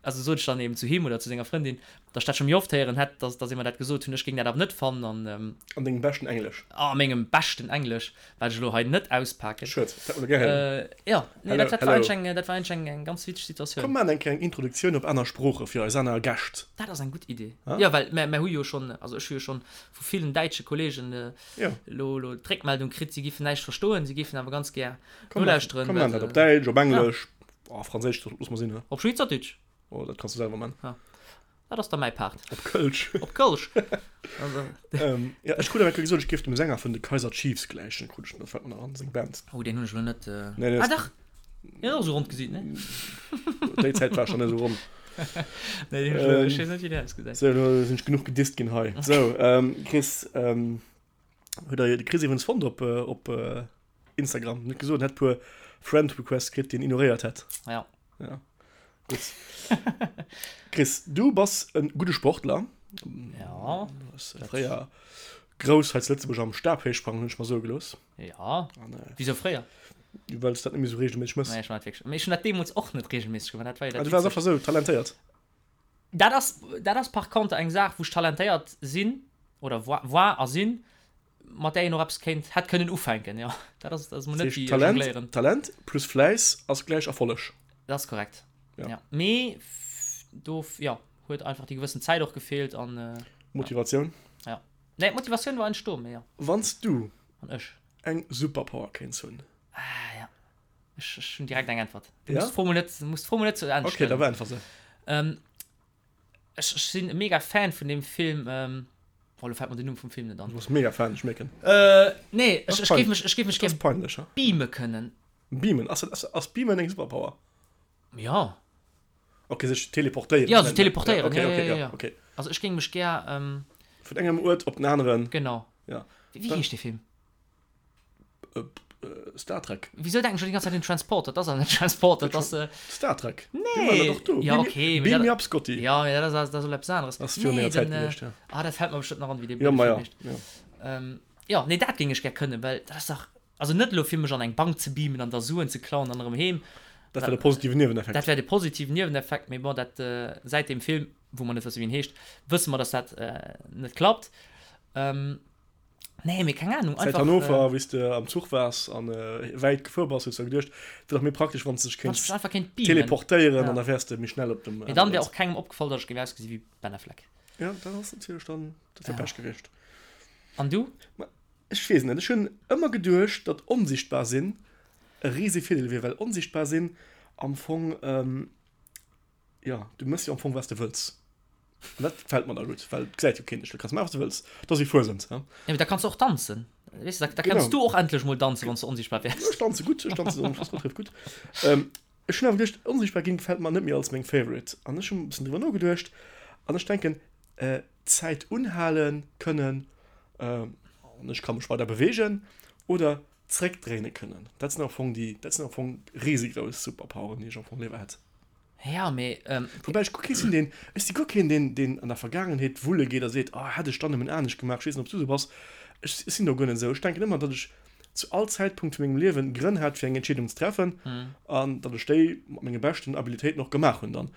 also sot ech dann eben zu him oder zu senger Frëndin, datt ech dat scho méi oft héieren hätt, datt, datt ee mer dat gesot hunn. Ech géing dat awer net fannen an. An dengem beschten Englesch. A mengem beschten Englesch, wat ech elo hei net auspaken. Schued, dat hätt mer gär héieren. Jo, nee, dat, dat war eigentlech eng, dat war eigentlech eng, eng ganz witzeg Situatioun. Komm, maachen eng kleng Introduktioun op aner Sprooche fir eis aner Gäscht. Dat ass eng gutt Idee. Jo, well mär, mär hu jo schonn, also ech hu jo schonn vu villen däitsche Kollegen elo, elo d'Réckmeldung kritt, si géifen näischt verstoen, si géifen awer ganz gär nolauschteren. Komm, maachen dat op Däitsch, op Englesch, oh, Franséisch loosse mer sinn, he? Op Schweizerdeutsch. Oh, dat kanns du selwer man. Dat ass da mäi Part. Op Kölsch. Op Kölsch. ähm, ja, ech krut awer gesot, ech géif dem Sänger vun de Kaiser Chiefs gläichen, krut ech, dat fällt mir nach an, seng Band. Oh, deen hunn ech elo net. Äh... Nee, nee, ah, dach! Hien ass och esou ronn gesiit, ne? Déi Zäit war schon net esou ronn. Nee, deen hunn ech elo, ech weess net, wéi deen ausgesäit. Sou, elo sinn ech genuch gedisst ginn hei. Sou, ähm, Chris, ähm, huet der de Chris iwwrens fonnt op, äh, op äh, Instagram? Net gesot, en hätt puer Friend Requests kritt, déi en ignoréiert hätt. Ja. Ja. Gutt. Chris, du bass e gudde Sportler. Ja. Du bass fréier grouss hei zu Lëtzebuerg am Stabhéichsprangen, hunn ech mer soe gelooss. Ja. An, äh, Wieso fréier? Well s dat net méi sou regelméisseg mëss. Nee, ech war net wierklech. Mee ech hunn dat deemools och net regelméisseg gemaach. Dat war jo dat. Ah, du waars einfach sou talentéiert. Dat ass, dat ass par contre eng Saach, wou ech talentéiert sinn, oder war, war a sinn, mat där een och eppes kéint, hätt kënnen ufänken, jo. Dat ass, dat ass mol net wéi Talent, jongléieren. Talent plus Fläiss ass gläich Erfolleg. Dat ass korrekt, ja. ja. Mee do, jo, huet einfach déi gewëssen Zäit och gefeelt an. Motivatioun. Ja. Nee, d'Motivatioun war eigentlech do, mee jo. Wann s du. An ech. Eng Superpower kéints hunn. Ah, ja. Ech, ech hunn direkt eng Äntwert. Du ja? musst d'Fro mol net, musst d'Fro mol net zu Enn stellen. Okay, da beäntwer se. Ähm, ech, ech sinn e mega Fan vun deem Film. Ähm, oh, lo fält mer den Numm vum Film net an. Du bass mega Fan, ech mierken. Äh, nee, ech, ech géif mech, ech géif mech gär peinlech, beame kënnen. Beamen? Ass, ass, ass beamen eng Superpower? Ja. Okay, sech teleportéieren. Ja, sech teleportéieren. Okay, okay, ja, ja, ja. okay. Also ech géing mech gär. Ähm, Vun engem Uert op den aneren. Genau. Ja. Wéi, wéi heescht dee Film? Star Trek. Wieso denken ech schon die ganze Zeit un Transporter? Dat ass awer net Transporter, dat ass. Äh, Star Trek. Nee. Doch do. Ja, okay. Beam me up, Scotty. Ja, ja, dat ass, dat ass eppes aneres. Das ass virun enger Zäit gewiescht, ja. Ah, dat fällt mer bestimmt nach an, wéi dee ja, ma ja, ja. Ähm, ja, nee, dat géing ech gär kënnen, well dat ass dach, also net elo fir mech an eng Bank ze beamen an da Suen ze klauen an erëm heem. Dat wär de positiven Nieweneffekt. Dat wär de positiven Nieweneffekt, mee bon, dat, äh, säit deem Film, wou mer net wësse wéi en heescht, wësse mer, dass dat äh, net klappt. Ähm, Nee, mee keng Ahnung. Säit Hannover, äh, wéi s de am Zuch waars an äh, wäit gefuer bass, hues du geduecht, et wier dach méi praktesch, wann s de dech kéints einfach kéint beamen. teleportéieren ja. an da wäers de méi schnell op dem. Mee dann wär och kengem opgefall, datt ech géif ausgesi wéi Ben Affleck. Ja, dat ass natierlech dann, dat wär ja. Pech gewiescht. An du? Ech weess net, ech hunn ëmmer geduecht, datt onsichtbar sinn e rise Virdeel wier, well onsichtbar sinn am Fong, jo, du méchs jo am Fong wat s de wëlls. An dat gefält mer da gutt, well et gesäit jo keen dech, du kanns maachen wat s de wëlls, dat ass wéi Fuesent, he. Jo, mee da kanns de och danzen, weess de, da kenns du och endlech mol danzen, wann s de onsichtbar wäers. Ech danze gutt, ech danze relativ gutt. Ech hunn awer geduecht, onsichtbar ginn gefält mer net méi als meng Favorite. An ech hunn e bëssen driwwer nogeduecht an ech denken, D'Zäit unhale kënnen, an ech ka mech weider beweegen, oder zréckdréine kënnen. Dat sinn am Fong déi, dat sinn am Fong risegrouss Superpoweren, déi ech am Fong léiwer hätt. Ja, mee. Woubäi ech guer kee sinn, deen, ech si guer keen, deen, deen an der Vergaangenheet wulle geet a seet, oh hätt ech dann nëmmen anescht gemaach. Ech weess net, ob s du esou bass. Ech sinn do guer net esou. Ech denken ëmmer, datt ech zu all Zäitpunkt vu mengem Liewen Grënn hat, fir eng Entscheedung ze treffen, an datt ech déi mat menge beschten Abilitéiten och gemaach hunn dann.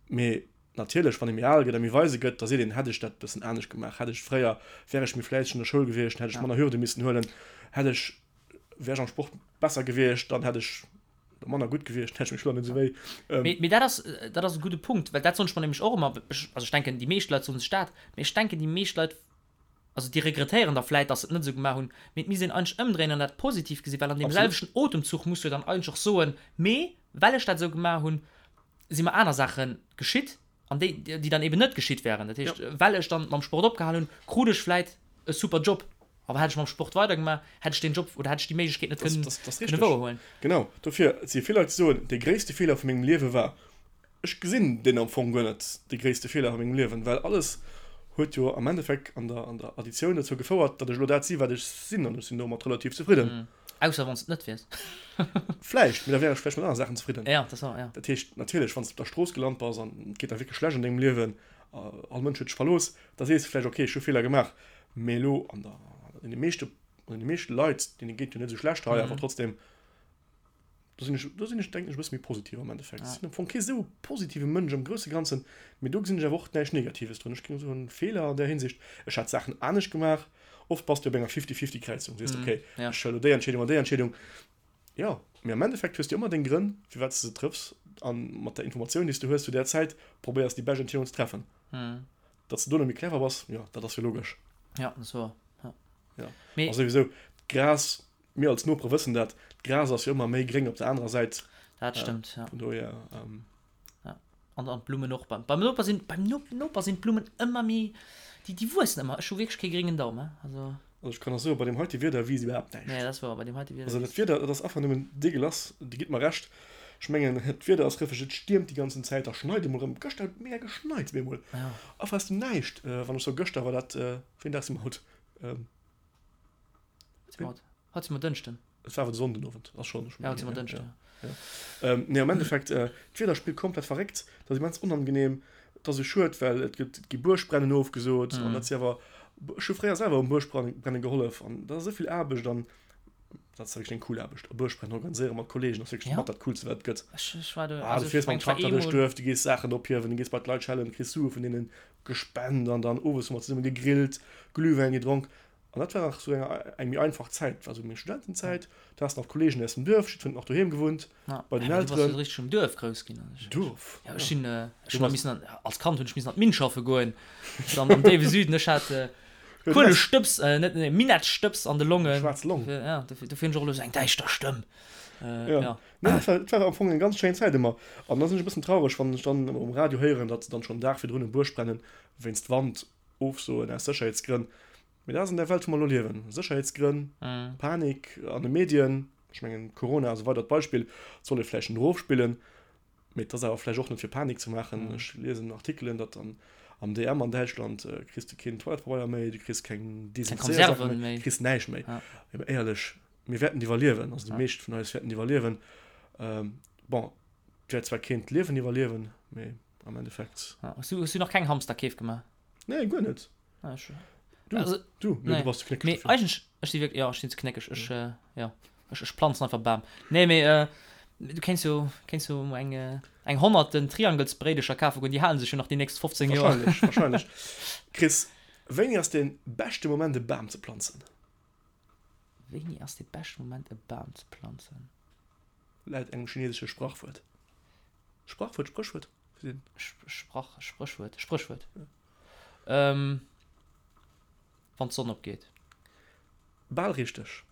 Mee natierlech, wann ee méi al gëtt a méi weise gëtt, da seet een, hätt ech dat e bëssen anescht gemaach, hätt ech fréier, wär ech méi fläisseg an der Schoul gewiescht, hätt ech manner Hürde missen huelen, hätt ech, wär ech am Sport besser gewiescht, dann hätt ech manner gutt gewiescht, hätt ech meng Schulter net esou wéi. Mee, mee dat ass, dat ass e gudde Punkt, well dat soen ech mer nämlech och ëmmer, ech, also ech denken, déi meescht Leit soen sech dat, mee ech denken, déi meescht Leit, also déi regrettéieren da vläit, dass se et net esou gemaach hunn, mee et misst een eigentlech ëmdréinen an dat positiv gesinn, well an deem selwechten Otemzuch muss du jo dann eigentlech och soen, mee well ech dat esou gemaach hunn, si mer aner Saache geschitt an déi, déi dann eben net geschitt wären. Dat heescht, well ech dann mam Sport opgehal hunn, krut ech vläit e super Job. Awer hätt ech mam Sport weidergemaach, hätt ech deen Job oder hätt ech déi Méiglechkeet net kënnen kënnen wouerhuelen. Genau, dofir, et si vill Leit, déi soen, dee gréisste Feeler vu mengem Liewe war. Ech gesinn deen am Fong guer net, de gréisste Feeler a mengem Liewen, well alles huet jo am Endeffekt an der, an der Additioun dozou gefouert, datt ech elo dat si wat ech sinn an ech sinn domat relativ zefridden. Ausser wann s de et net wiers. Vläicht, mee da wär ech vläicht mat anere Saachen zefridden. Ja, dat war, ja. Dat heescht, natierlech, wann s de op der Strooss gelant bass an et geet der wierklech schlecht an dengem Liewen, all Mënsch huet dech verlooss, da sees de vläicht, okay, ech hu Feeler gemaach. Mee elo an der, an deene meeschte, an deene meeschte Leit, deene geet jo net esou schlecht hei, awer trotzdem, Do sinn ech, do sinn ech, denken ech, e bësse méi positiv am Endeffekt. Ech sinn am Fong kee sou positive Mënsch am grousse Ganzen, mee do gesinn ech awer och näischt Negatives drun. Ech géing soen, Feeler an där Hinsicht, ech hätt Saachen anescht gemaach. Oft bass du op enger Fifty-Fifty-Kräizung, sees de, okay, ech huele elo déi Entscheedung an déi Entscheedung. Jo, mee am Endeffekt hues du ëmmer deng Grënn, firwat s de se trëffs, a mat der Informatioun, déi s du hues zu där Zäit, probéiers déi bescht Entscheedung ze treffen. Datt s de dono méi clever bass, jo, dat ass jo logesch. Jo, dat ass wouer, jo. Jo, a souwisou, d'Gras Mir als Nopere wëssen dat, d'Gras ass jo ëmmer méi gréng op der anerer Säit. Dat stëmmt, ja. Vun dohier. Ja. An, an d'Blummen och. Beim, beim Noper sinn, beim no Noper sinn d'Blummen ëmmer méi, déi, déi wuessen ëmmer. Ech hu wierklech kee gréngen Daum, he. Also. Also ech kann der soen, bei deem heite Wieder wiisst iwwerhaapt näischt. Nee, dat ass wouer, bei deem heite Wieder. Also dat Wieder, dat ass einfach nëmmen deegelass, Dir gitt mer Recht. Ech mengen, d'Wieder ass rëffeg, et stiermt déi ganzen Zäit, da schneit emol erëm. Gëschter huet et mega geschneit, bemol. Ja. Einfach aus dem Näischt. Wann ech soe gëschter, war dat, wéi en Dag si mer haut? Haut si mer Dënschden. Et war awer de Sonnden Owend, ass schonn Ja, haut si mer Dënschden. Ja. Ja. Nee, am Endeffekt, äh, d'Wieder spillt komplett verréckt, dat ass immens onangenehm, et ass esou schued, well et gëtt, et gi Buergbrennen ofgesot an dat si awer, ech hu fréier selwer um Buergbrennen gehollef an dat ass esou vill Aarbecht an dat ass wierklech eng cool Aarbecht, e Buergbrennen organiséiere mat Kollegen ass wierklech mat dat Coolste wat et gëtt. Ech, ech war do, Ah, du fiers mam Trakter duerch d'Duerf, du gees Saachen ophiewen, du gees bei d'Leit schellen, kriss Sue vun deenen gespent an dann owes hu mer zesumme gegrillt, Glühwäin gedronk. An dat war nach sou eng eng méi einfach Zäit, dat war sou meng Studentenzäit, do has de nach Kollegen aus dem Duerf, jiddwereen huet nach doheem gewunnt, bei den Elteren. Du bass jo richteg um Duerf grouss ginn. Duerf? Jo, ech sinn, ech hunn nach missen an, als Kand hunn ech missen an d'Minn schaffe goen, dann am déiwe Süden, ech hat Kuelestëbs, net, nee, Minettstëbs an de Longen. Schwaarz Long. Ja, dofir, dofir hunn ech och elo sou eng däischter Stëmm. Jo. Nee, dat war, dat war am Fong eng ganz schéin Zäit ëmmer. An da sinn ech e bëssen traureg, wann ech dann um Radio héieren, datt se dann schonn den Dag virdrun e Buergbrennen wéinst Wand ofsoen aus Sécherheetsgrënn. Mee dat ass an där Welt, wou mer elo liewen. Sécherheetsgrënn, Panik an de Medien, ech mengen Corona ass e weidert Beispill, et soll ee vläicht net erofspillen, mee et ass awer vläicht och net fir Panik ze maachen. Ech liesen Artikelen, datt an am DM an Däitschland kriss de keen Toilettepabeier méi, du kriss keng Desinfizéiersaache méi, du kriss näischt méi. Mee éierlech, mir wäerten et iwwerliewen, also déi meescht vun eis wäerten et iwwerliewen. Bon, et wäert zwar keen d'Liewen iwwerliewen, mee am Endeffekt. Hues du, hues du nach keng Hamsterkeef gemaach? Nee, guer net. Ah, ech, du, also, du, nee, nee. du bass ze knéckeg. Mee eigentlech, ech si wierklech, jo, ech sinn ze knéckeg. Ech, äh, jo, ech, ech planzen einfach Bam. Nee, mee äh, du kéints jo, kéints jo eng, äh, eng honnerten Triangelsbréidecher kafe goen, déi halen sech jo nach déi nächst 15 Joer. Wahrscheinlech, wahrscheinlech. Chris, wéini ass dee beschte Moment e Bam ze planzen? Wéini ass dee beschte Moment e Bam ze planzen? Laut engem chinesesche Sprachwuert. Sprachwuert, Spréchwuert? Sprach, Spréchwuert, Spréchwuert. Ähm, wann d'Sonn opgeet. Bal richteg.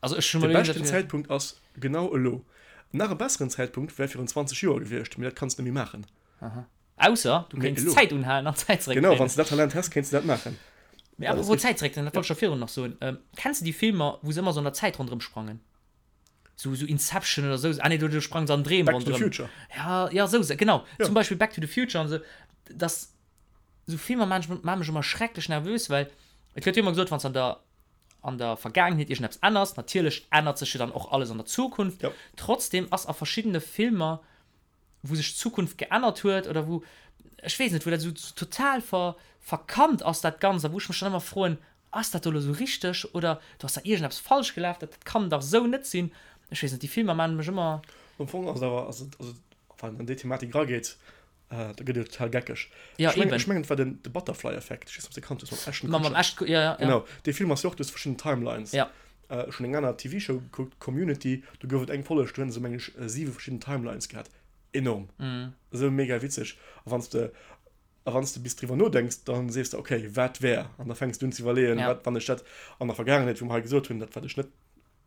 Also ech hu De beschten Zäitpunkt ass genau elo. Nach e besseren Zäitpunkt wär virun 20 Joer gewiescht, mee dat kanns de net méi maachen. Aha. Ausser du kéints d'Zäit unhalen an d'Zäit zeréckdréinen. Genau, wann s de dat Talent häss, kéints de dat maachen. Mee apropos Zäit zeréckdréinen, dat wollt ech scho virun nach soen. Kenns de déi Filmer, wou se ëmmer sou an der Zäit ronderëm sprangen? Sou, sou Inception oder sou. Ah nee, do, do sprangen se an Dreem ronderëm. Back to the Future. Ja, ja, sou, genau. Zum Beispill Back to the Future an sou. Dass. Sou Filmer maan mech ëmmer schrecklech nervös, well et gëtt jo ëmmer gesot, wann s an der an der Vergaangenheet iergendeppes ännerst, natierlech ännert sech jo dann och alles an der Zukunft. Jo. Trotzdem ass a verschiddene Filmer, wou sech d'Zukunft geännert huet oder wou, ech weess net, wou dat esou total ver verkannt ass dat Ganzt a wou ech mech dann ëmmer froen, ass dat do elo esou richteg oder do ass da iergendeppes falsch gelaf, dat kann dach esou net sinn. Ech weess net, déi Filmer maan mech ëmmer. Am Fong ass et awer, ass et, also wann een an déi Thematik erageet, Ah, da gëtt et jo total geckeg. Ja, Ech mengen, eben. ech mengen, et war den, de Butterfly-Effekt. Ech weess net, ob s de kannt hues, mam Ashton Mam, mam Kutcher. Ashton, ja, ja, ja. Genau, dee Film ass jo och, du hues verschidden Timelines. Ja. Äh, ech hunn eng aner TV-Show gekuckt, Community, do gouf et eng Folleg, do hunn se, meng ech, siwe verschidden Timelines gehat. Enorm. Mhm. Esou mega witzeg. A wann s de, a wann s de bis driwwer nodenks, dann sees de, okay, wat wär? An da fänks du un ze iwwerleeën, Ja. wat, wann ech dat an der Vergaangenheet, wou mer hei gesot hunn, dat wat ech net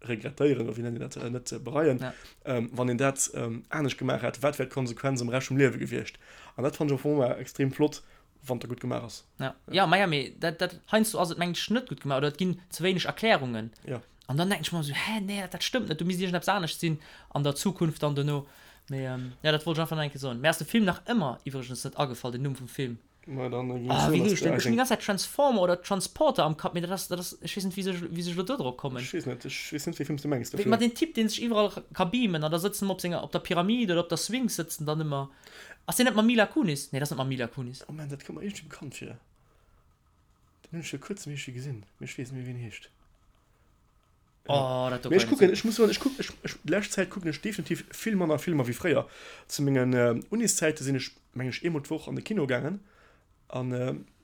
regrettéieren oder wéi nennt een dat, net bereien, ja. ähm, wann een dat ähm, anescht gemaach hätt, wat wär d'Konsequenz am Rescht vum Liewe gewiescht? An dat fand ech am Fong ëmmer extrem flott, wann dat gutt gemaach ass. Ja, ja, ma ja, mee dat, dat, heiansdo ass et mengen ech net gutt gemaach oder et ginn ze wéineg Erklärungen. Ja. An dann denken ech mer esou, hä, nee, dat, dat stëmmt net, do misst iergendeppes anescht sinn an der Zukunft dann dono. Mee ähm, ja, dat wollt ech einfach nach eng Kéier soen. Mir ass de Film nach ëmmer iwwregens net agefall, den Numm vum Film. Ma dann ging Ah, wéi heescht den? Ech hunn déi ganz Zäit Transformer oder Transporter am Kapp, mee dat ass, dat ass, ech weess net, wéi sech, wéi sech elo do drop kommen. Ech weess net, ech weess net, wéi Film s du mengs dofir. Ma deen Typ, deen sech iwwerall ka beamen an da sëtzen ëmmer op senger, op der Pyramid oder op der Sphinx sëtzen dann ëmmer. Ass deen net mam Mila Kunis? Nee, dat ass net mam Mila Kunis. Oh man, dat kënnt mer iergendwéi bekannt vir. Den hunn ech vir kuerzem iergendwéi gesinn, mee ech weess net méi, wéi en heescht. Oh, dat do Mee ech kann ich kucken, ech muss soen, ech kuck, ech, ech, déi lescht Zäit kucken ech definitiv vill manner Filmer wéi fréier. Zu mengen Uniszäite sinn ech, meng ech, eemol d'Woch an de Kino gaangen an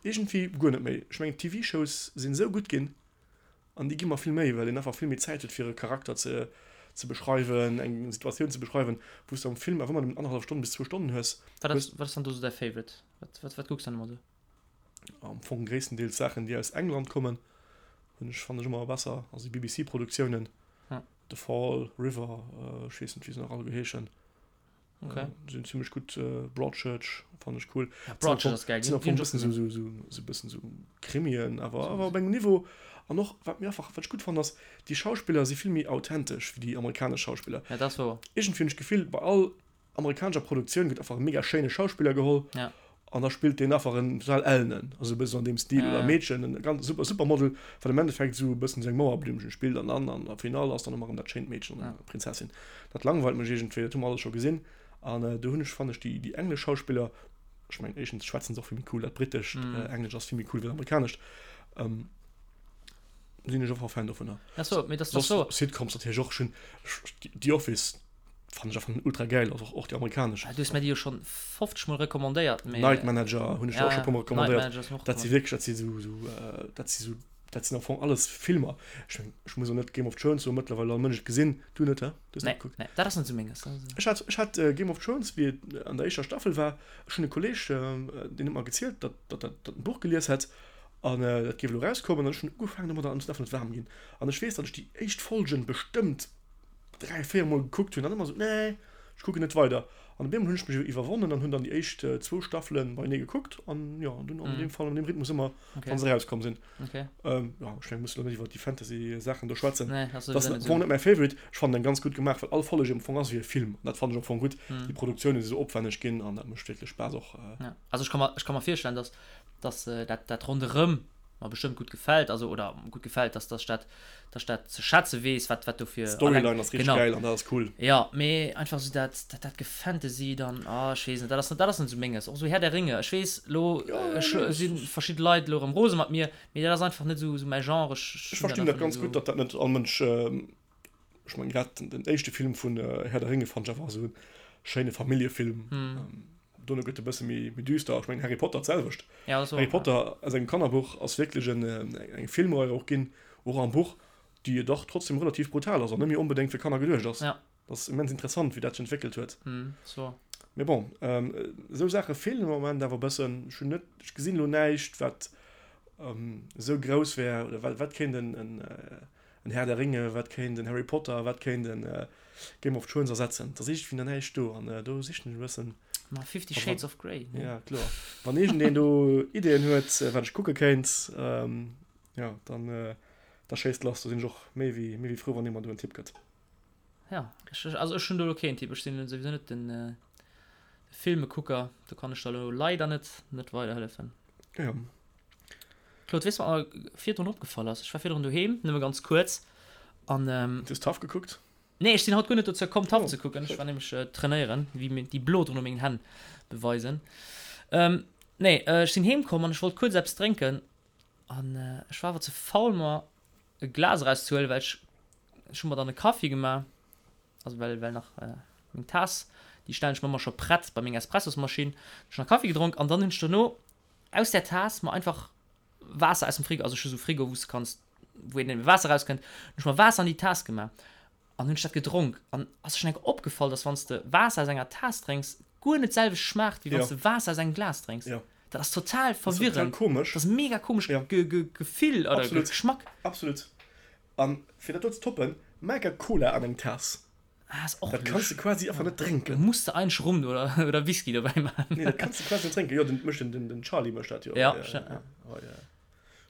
iergendwéi guer net méi. Ech mengen, d'TV-Shows sinn esou gutt ginn an déi gi mer vill méi, well een einfach vill méi Zäit huet, fir e Charakter ze, ze beschreiwen, eng Situatioun ze beschreiwen, wou s de am Film awer ëmmer nëmmen annerhallef Stonn bis zwou Stonnen hues. Wat ass, wat ass dann do sou däi Favorite? Wat, wat, wat kucks du dann ëmmer sou? Am Fong gréisstendeels Saachen, déi aus England kommen, hunn ech, fannen ech ëmmer besser. Also déi BBC-Produktiounen, Ja. The Fall, River, ech weess net, wéi se nach alleguer heeschen. Okay. Sinn zimmlech gutt. Broadchurch fannen ech cool. Ja, Broadchurch ass geil. Sinn am Fong e bëssen esou, esou, esou e bëssen esou Krimien, awer, awer op engem Niveau. An och, wat mir einfach, wat ech gutt fannen, ass, déi Schauspiller si vill méi authentesch wéi déi amerikanesch Schauspiller. Ja, dat ass wouer. Iergendwéi hunn ech d'Gefill, bei all amerikanescher Produktioun gëtt einfach e mega schéine Schauspiller geholl ja. an da spillt deen einfach en total ellenen, also e bëssen an deem Stil, ja, oder Meedchen, en ganz super Supermodel, wat am Endeffekt esou e bëssen esou eng Mauerblümchen spillt an dann an der Finale ass dann ëmmer erëm dat schéint Meedchen oder ja. Prinzessin. Dat langweilt mech iergendwéi, dat hu mer alles scho gesinn an äh, do hunn ech, fannen ech déi, déi englesch Schauspiller, ech mengen éischtens schwätzen se och vill méi cool, dat britescht mm. äh, Englesch ass vill méi cool wéi dat amerikanescht, ähm, sinn ech einfach Fan dovunner. Ach so, mee das, das so. Sitcoms natierlech och, ech hunn The Office, Fannen ech einfach ultra gäil, also och déi amerikanesch. Du hues mir déi jo schon 50 mol recommandéiert, mee. Night Manager hunn ech der och scho puer mol recommandéiert. Dat si wierklech, dat si sou, sou, dat si sou, dat sinn am Fong alles Filmer. Ech mengen, ech muss och net Game of Thrones soen, mëttlerweil all Mënsch et gesinn. Du net, he? Du hues net gekuckt? Nee, dat ass net sou menges. Ech hat, ech hat Game of Thrones, wéi et an der éischter Staffel war, ech hunn e Kolleg, deen huet mer gezielt, datt, datt dat, datt en d'Buch gelies hätt an dat géif elo erauskommen an ech hunn ugefaangen domadder an ech sinn einfach net waarm ginn. An ech weess, datt ech déi éischt Folgen bestëmmt 3, 4 mol gekuckt hunn an ëmmer esou, nee, ech kucken net weider. An op eemol hunn ech mech iwwerwonnen an hunn dann déi éischt zwou Staffele beienee gekuckt an jo, an dunn an deem Fall an deem Rhythmus ëmmer, wann se erauskomm sinn. Okay. Jo, ech meng, muss elo net iwwer déi Fantasy-Saachen do schwätzen. Nee, dat ass Dat ass am Fong net mäi Favorite. Ech fannen en ganz gutt gemaach, well all Folleg am Fong ass wéi e Film an dat fannen ech am Fong gutt. Déi Produktioune si sou opwänneg ginn an dat mécht wierklech Spaass och. Ja, also ech ka mer, ech ka mer virstellen, dass, dass dat, dat ronderëm mer bestëmmt gutt gefält, also oder gutt gefält, dass dass ech dat dass ech dat ze schätze weess, wat wat dofir D'Storyline ass richteg genau. gäil an dat ass cool. Jo, mee einfach sou dat dat dat Gefantasy dann, ah ech weess net, dat ass net dat ass net sou menges. Och sou Herr der Ringe, ech weess elo Ja, nee, si verschidde Leit elo erëm rose mat mir, mee dat ass einfach net sou sou mäi Genre, ech Ech hunn dat verstinn dat einfach net ganz gutt, sou. datt dat net all Mënsch, ech mengen grad den éischte Film vun Herr der Ringe fannt ech einfach esou e schéine Familljefilm. Dono gëtt e bësse méi méi düster. Ech mengen Harry Potter d'selwecht. Ja, dat ass och, Harry Potter aus engem Kannerbuch ass wierklech en eng Filmrei och ginn, och am Buch, déi dach trotzdem relativ brutal ass an net méi onbedéngt fir Kanner geduecht ass. Ja. Dat ass immens interessant, wéi dat sech entwéckelt huet. Mm, so. Mee bon, esou Saache feelen am Moment awer e bëssen. Ech hunn net, ech gesinn elo näischt, wat. esou grouss wär, oder wat, wat kéint en, en, en Herr der Ringe, wat kéint en Harry Potter, wat kéint en Game of Thrones ersetzen? Et ass iergendwéi nach näischt do an do sichen ech e bëssen. Ma Fifty Shades of Grey, ne? Ja, kloer. Wann iergendeen do Ideeën huet, wat ech kucke kéint, jo, dann, da schéisst lass. Do sinn ech och méi wéi, méi wéi frou, wann ee mer do en Tipp gëtt. Ja, ech, also ech hunn do elo keen Tipp. Ech sinn souwisou net den Filmekucker, do kann ech der elo leider net, net weiderhëllefen. Ja. Claude, weess du, wat mer virdrun opgefall ass? Ech war virdrun doheem, nëmme ganz kuerz, an. Du hues Taff gekuckt? Nee, ech sinn haut guer net dozou komm, Taff ze kucken. Ech war nämlech trainéieren, wéi mir déi Bloderen u mengen Hänn beweisen. Nee, ech sinn heem komm an ech wollt kuerz eppes drénken an ech war awer ze faul, mer e Glas erauszehuelen, well ech, ech hu mer dann e Kaffi gemaach, also well, well nach meng Taass, déi stellen ech mer ëmmer scho prett bei meng Espressosmaschinn. Ech hunn nach Kaffi gedronk an dann hunn ech dono aus där Taass mer einfach Waasser aus dem Frigo, also ech hu sou Frigo, wou s de kanns, wou een eben Waasser rauskënnt, hunn ech mer Waasser an déi Taass gemaach an hunn ech dat gedronk an ass der schonn eng Kéier opgefall, dass wann s de Waasser aus enger Taass drénks, guer net d'selwecht schmaacht, wéi wann s de Waasser aus engem Glas drénks. Jo. Dat ass total Dat ass total verwirrend. komesch. Dat ass mega komesch Ja. Ge Ge Gefill oder Absolut. Geschmack. Absolut. An fir dat do ze toppen, maach e Cola an eng Taass. Ah, ass och Dat kanns de quasi einfach net drénken. Muss de eigentlech Rum oder, oder Whisky dobäi maachen. Nee, dat kanns de quasi net drénken. Jo, den mécht den, den, den Charlie mécht dat jo. Ja, ja, ja. ja. Oh, ja.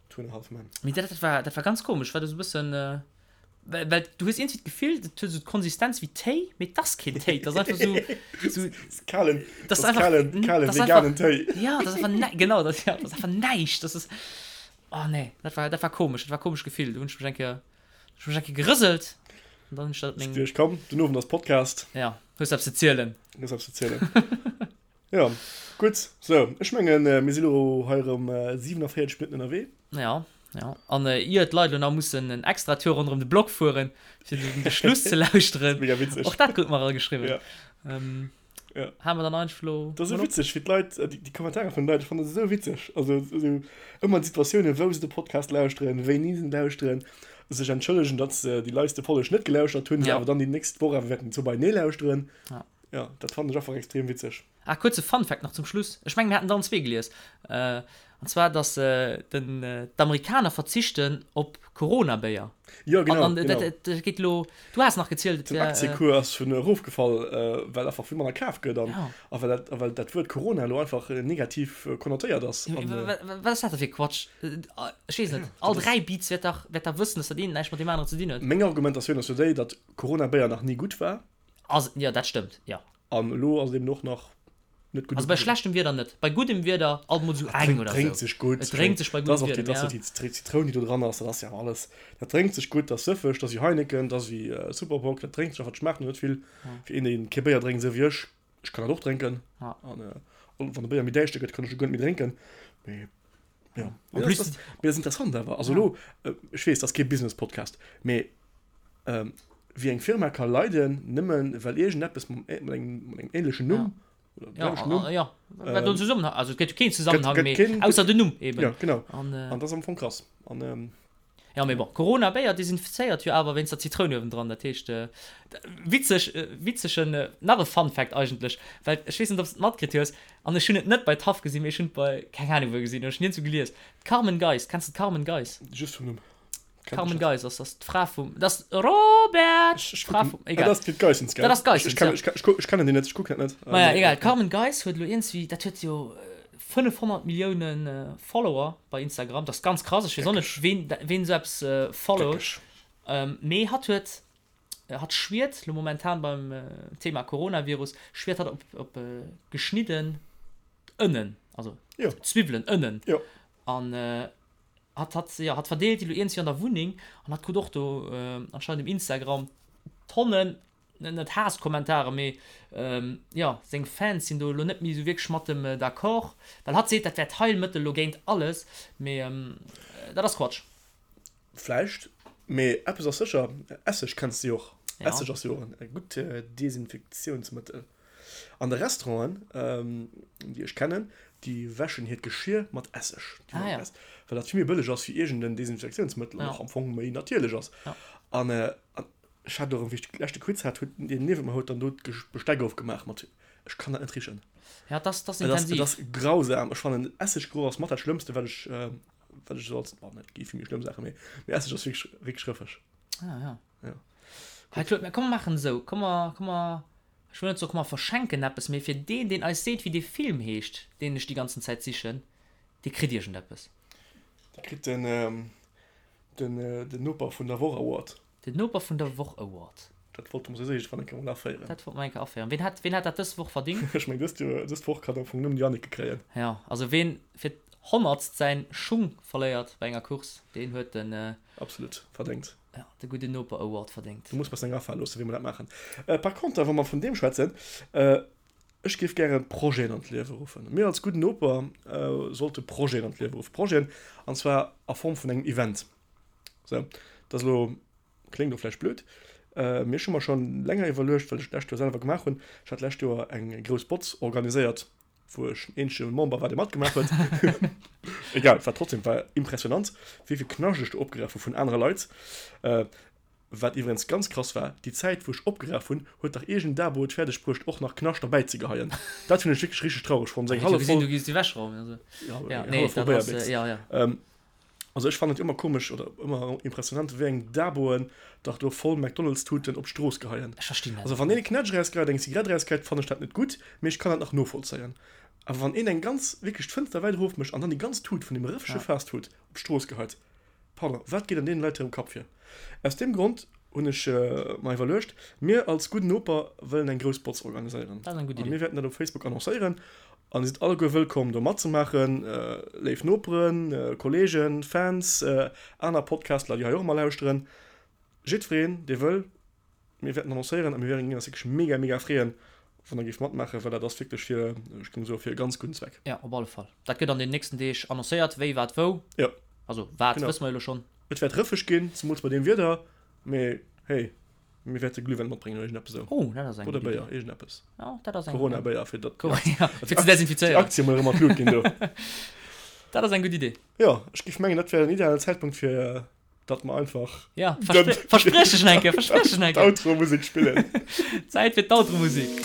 Two and a Half Men. Mee dat, dat war, dat war ganz komesch, war dat esou e bëssen, well, well du hues iergendwéi d'Gefill, dat huet esou d'Konsistenz wéi Téi, mee et ass keen Téi, et ass einfach esou, esou. Kalen, dat ass einfach, kalen, kalen veganen Téi. Ja, dat ass einfach näi, genau, dat, ja, dat ass einfach näischt, dat ass, oh nee, dat war, dat war komesch, dat war komesch Gefill, do hunn ech mech eng Kéier. Ech hu mech eng Kéier gerëselt an dann hunn ech dat meng. Duerch komm, den Owend ass Podcast. Ja, hues eppes ze zielen. Hues eppes ze zielen. Ja, gutt. Sou, ech mengen, mir si lo hei erëm 47 Minutten ënnerwee. Ja, ja. An ier d'Leit elo nach mussen en extra Tour ronderëm de Block fueren, fir de Schluss ze lauschteren. Mega witzeg. Och dat krut mer erageschriwwen. Ja. Ähm, Ja. Hale mer dann einfach lo. Dat ass esou witzeg, wéi d'Leit, déi Kommentare vun den Leit, ech fannen dat esou witzeg. Also esou ëmmer d'Situatiounen, wou se de Podcast lauschteren, wéini se en lauschteren, sech entschëllegen, datt se déi leiste Folleg net gelauschtert hunn, se Ja. awer dann déi nächst Woch awer wäerten zwou beienee lauschteren. Ja. Ja, dat fannen ech einfach extrem witzeg. Ah, kuerze Fun Fact nach zum Schluss. Ech mengen, mir haten der allen zwee gelies. An zwar, dass den, d'Amerikaner verzichten op Corona-Béier. Jo, genau, An, an genau. dat, dat geet elo, du has nach gezielt, et Den wär. Aktiekuer ass vun erofgefall, well einfach vill manner kaf gëtt an, Ja. a well dat, a well dat Wuert Corona elo einfach negativ konnotéiert ass. Ja, An, wa, wa, wat ass dat da fir Quatsch? Ech weess net, ja, all dat ass. 3 Beats wäert dach, wäert dach wëssen, dass dat eent näischt mat deem aneren ze dinn huet. Meng Argumentatioun ass jo déi, datt Corona-Béier nach ni gutt war. Ass, jo, dat stëmmt, jo. An elo ass et eben och nach net gutt. Also bei schlechtem Wieder net. Bei guddem Wieder alt mol sou eng oder Et drénkt sou. sech gutt. Et drénkt sech bei guddem Wieder, Dat ass ja. och déi Zitroun, déi do dran ass, dat ass jo awer alles. Dat drénkt sech gutt, dat ass sëffeg, dat ass wéi Heineken, dat ass wéi Super Bock, dat drénkt sech einfach, dat schmaacht net vill. Fir een, dee kee Béier drénkt, esou wéi ech, ech kann dat och drénken. An wann de Béier méi däischter gëtt, kann ech e guer net méi drénken. Mee jo, En plus, mee dat ass interessant awer. Also elo, ech weess, dat ass kee Business-Podcast, mee Wéi eng Firma ka leiden, nëmmen well iergendeppes mam mat engem ähnlechen Numm oder dem selwechten Numm. Ja, ja, ja, Zusammenhang, also et gëtt jo keen Zusammenhang méi, ausser den Numm eben. Ja, genau. An, an dat ass am Fong krass. An, ja, mee bon, Corona-Béier desinfizéiert jo awer wéinst der Zitroun uewendran, dat heescht, witzeg, witzegen, nach e Fun Fact eigentlech, well ech weess net, ob s de et matkritt hues, an ech hunn et net bei Taff gesinn, mee ech hunn et bei keng Ahnung wou gesinn, ech hunn niergendwou gelies, d'Carmen Geis, kenns de d'Carmen Geis? Just vum Numm. Carmen Geis ass das d'Fra vum das Robert d'Fra vum egal dat ass d'Geissens gell dat ass Geissens ja ech ech ech kennen déi net ech kucken dat net maja egal d'Carmen Geis huet elo iergendwéi dat huet jo 500 Milliounen Follower bei Instagram dat ass ganz krass ech weess och net ween ween esou eppes followt mee hatt huet hatt schwiert elo momentan beim Thema Coronavirus schwiert hatt op op geschnidden Ënnen also Zwiwwelen Ënnen an Hatt, hatt, jo, hatt verdeelt déi lo iergendwéi an der Wunneng an hatt krut och do anscheinend um Instagram Tonnen, net Haasskommentare, mee jo, seng Fans sinn do elo net méi esou wierklech mat em d'accord, well hatt seet, dat wär d'Heilmëttel lo géint alles, mee dat ass Quatsch. Vläicht, mee eppes ass sécher, Esseg kenns de jo och. Esseg ass jo och e gutt Desinfektiounsmëttel. An de Restauranten, déi ech kennen, déi wäschen hiert Geschir mat Esseg. Ah, ja. Well dat vill méi bëlleg ass wéi iergend en Desinfektiounsmëttel an och am Fong méi natierlech ass. An ech hat och, wéi ech de leschte Quiz hat, huet deen niewent mer huet dann do d'Besteck ofgemaach mat, ech kann dat net richen. Ja, dat ass intensiv. Et ass grausam. Ech fannen, Esseggeroch ass mat dat Schlëmmste, wat ech. wat ech esou als, bon, et gi vill méi schlëmm Saachen, mee, mee Esseg ass wierklech, wierklech rëffeg. Ah, ja. Ja. Hey, Claude, mir komm mer maachen esou, komm mer, komm mer, ech wëll net soen, komm mer verschenken eppes, mee fir deen, deen eis seet, wéi dee Film heescht, deen ech déi ganzen Zäit sichen, dee kritt iergendeppes. Dee kritt den, den, den Noper vun der Woch Award. Den Noper vun der Woch Award. Dat wollte mer souwisou iergendwann eng Kéier mol aféieren. Dat wollte mer eng Kéier aféieren. Ween hat, ween hat dat dës Woch verdingt? Ech meng, dëst Joer, dës Woch kann am Fong nëmmen d'Janneke kréien. Jo, also ween fir d'honnertst säin Schung verléiert bei enger Course, deen huet den. Absolut verdéngt. Jo, de Gudden Noper Award verdéngt. Do muss mer eis eng afale loossen, wéi mer dat maachen. Par conter, wa mer vun deem schwätzen, ech géif gäre Projeten an d'Liewe ruffen. Mir als Gudden Noper sollte Projeten an d'Liewe ruffen. Projeten, an zwar a Form vun engem Event. Sou, dat ass elo, kléngt elo vläicht blöd, mee ech hu mer scho länger iwwerluecht, well ech d'lescht Joer selwer gemaach hunn, ech hat d'lescht Joer eng grouss Botz organiséiert, wou ech den eenzege Member war, dee matgemaach huet. Egal, et war trotzdem war impressionant, wéi vill Knascht ech do opgeraf hu vun anere Leit. Wat iwwregens ganz krass war, déi Zäit, wou ech opgeraf hunn, huet dach iergend en Dabo et fäerdeg bruecht, och nach Knascht derbäi ze geheien. Dat hunn ech wierklech richteg traureg fonnt. Eng hallef voll. Ja, eng hallef voll Béierbéchs. Also ech fannen et ëmmer komesch oder ëmmer impressionant wéi eng Daboen dach do voll McDonald's Tuten op d'Strooss geheien. Ech verstinn dat Also wann een e Knätsch erausgeheit, eng Zigarett erausgeheit, fannen ech dat net gutt, mee ech kann dat nach novollzéien. Awer wann een eng ganz, wierklech d'Fënster wäit erof mécht an dann déi ganz Tut vun deem rëffege Fastfood op d'Strooss geheit, pardon, wat geet an deenen Leit hirem Kapp vir? Aus deem Grond hunn ech mer iwwerluecht, mir als Gudden Noper wëllen eng grouss Botz organiséieren. Dat ass eng gutt An Idee. mir wäerten dat op Facebook annoncéieren An dir sidd alleguer wëllkomm do matzemaachen, léif Noperen, Kollegen, Fans, aner Podcastler déi hei och ëmmer lauschteren, jiddwereen dee wëll. Mir wäerten annoncéieren a mir wären eis wierklech mega mega freeën, wann der géift matmaachen, well dat ass wierklech fir, ech géing soen, fir e ganz gudden Zweck. Jo, op alle Fall. Dat gëtt an den nächsten Deeg annoncéiert, wéi, wat, wou. Jo. Also wat wësse mer jo elo schonn. Et wäert rëffeg ginn, zemools bei deem Wieder, mee hey. Mir wäerte Glühwäin matbréngen oder iergendeppes esou. Oh, dat ass eng Oder gutt Béier, Idee. iergendeppes. Ja, dat ass eng. Corona-Béier, fir datt Ja, fir ze desinfizéieren. déi Aktie mol erëm an d'Lut ginn do. Dat ass eng gutt Idee. Jo, ech géif mengen, dat wär en idealen Zäitpunkt, fir datt mer einfach. Ja, verspriech dech nach eng Kéier, verspriech dech nach eng Kéier. D'Outro-Musek spillen. Zäit fir d'Outro-Musek.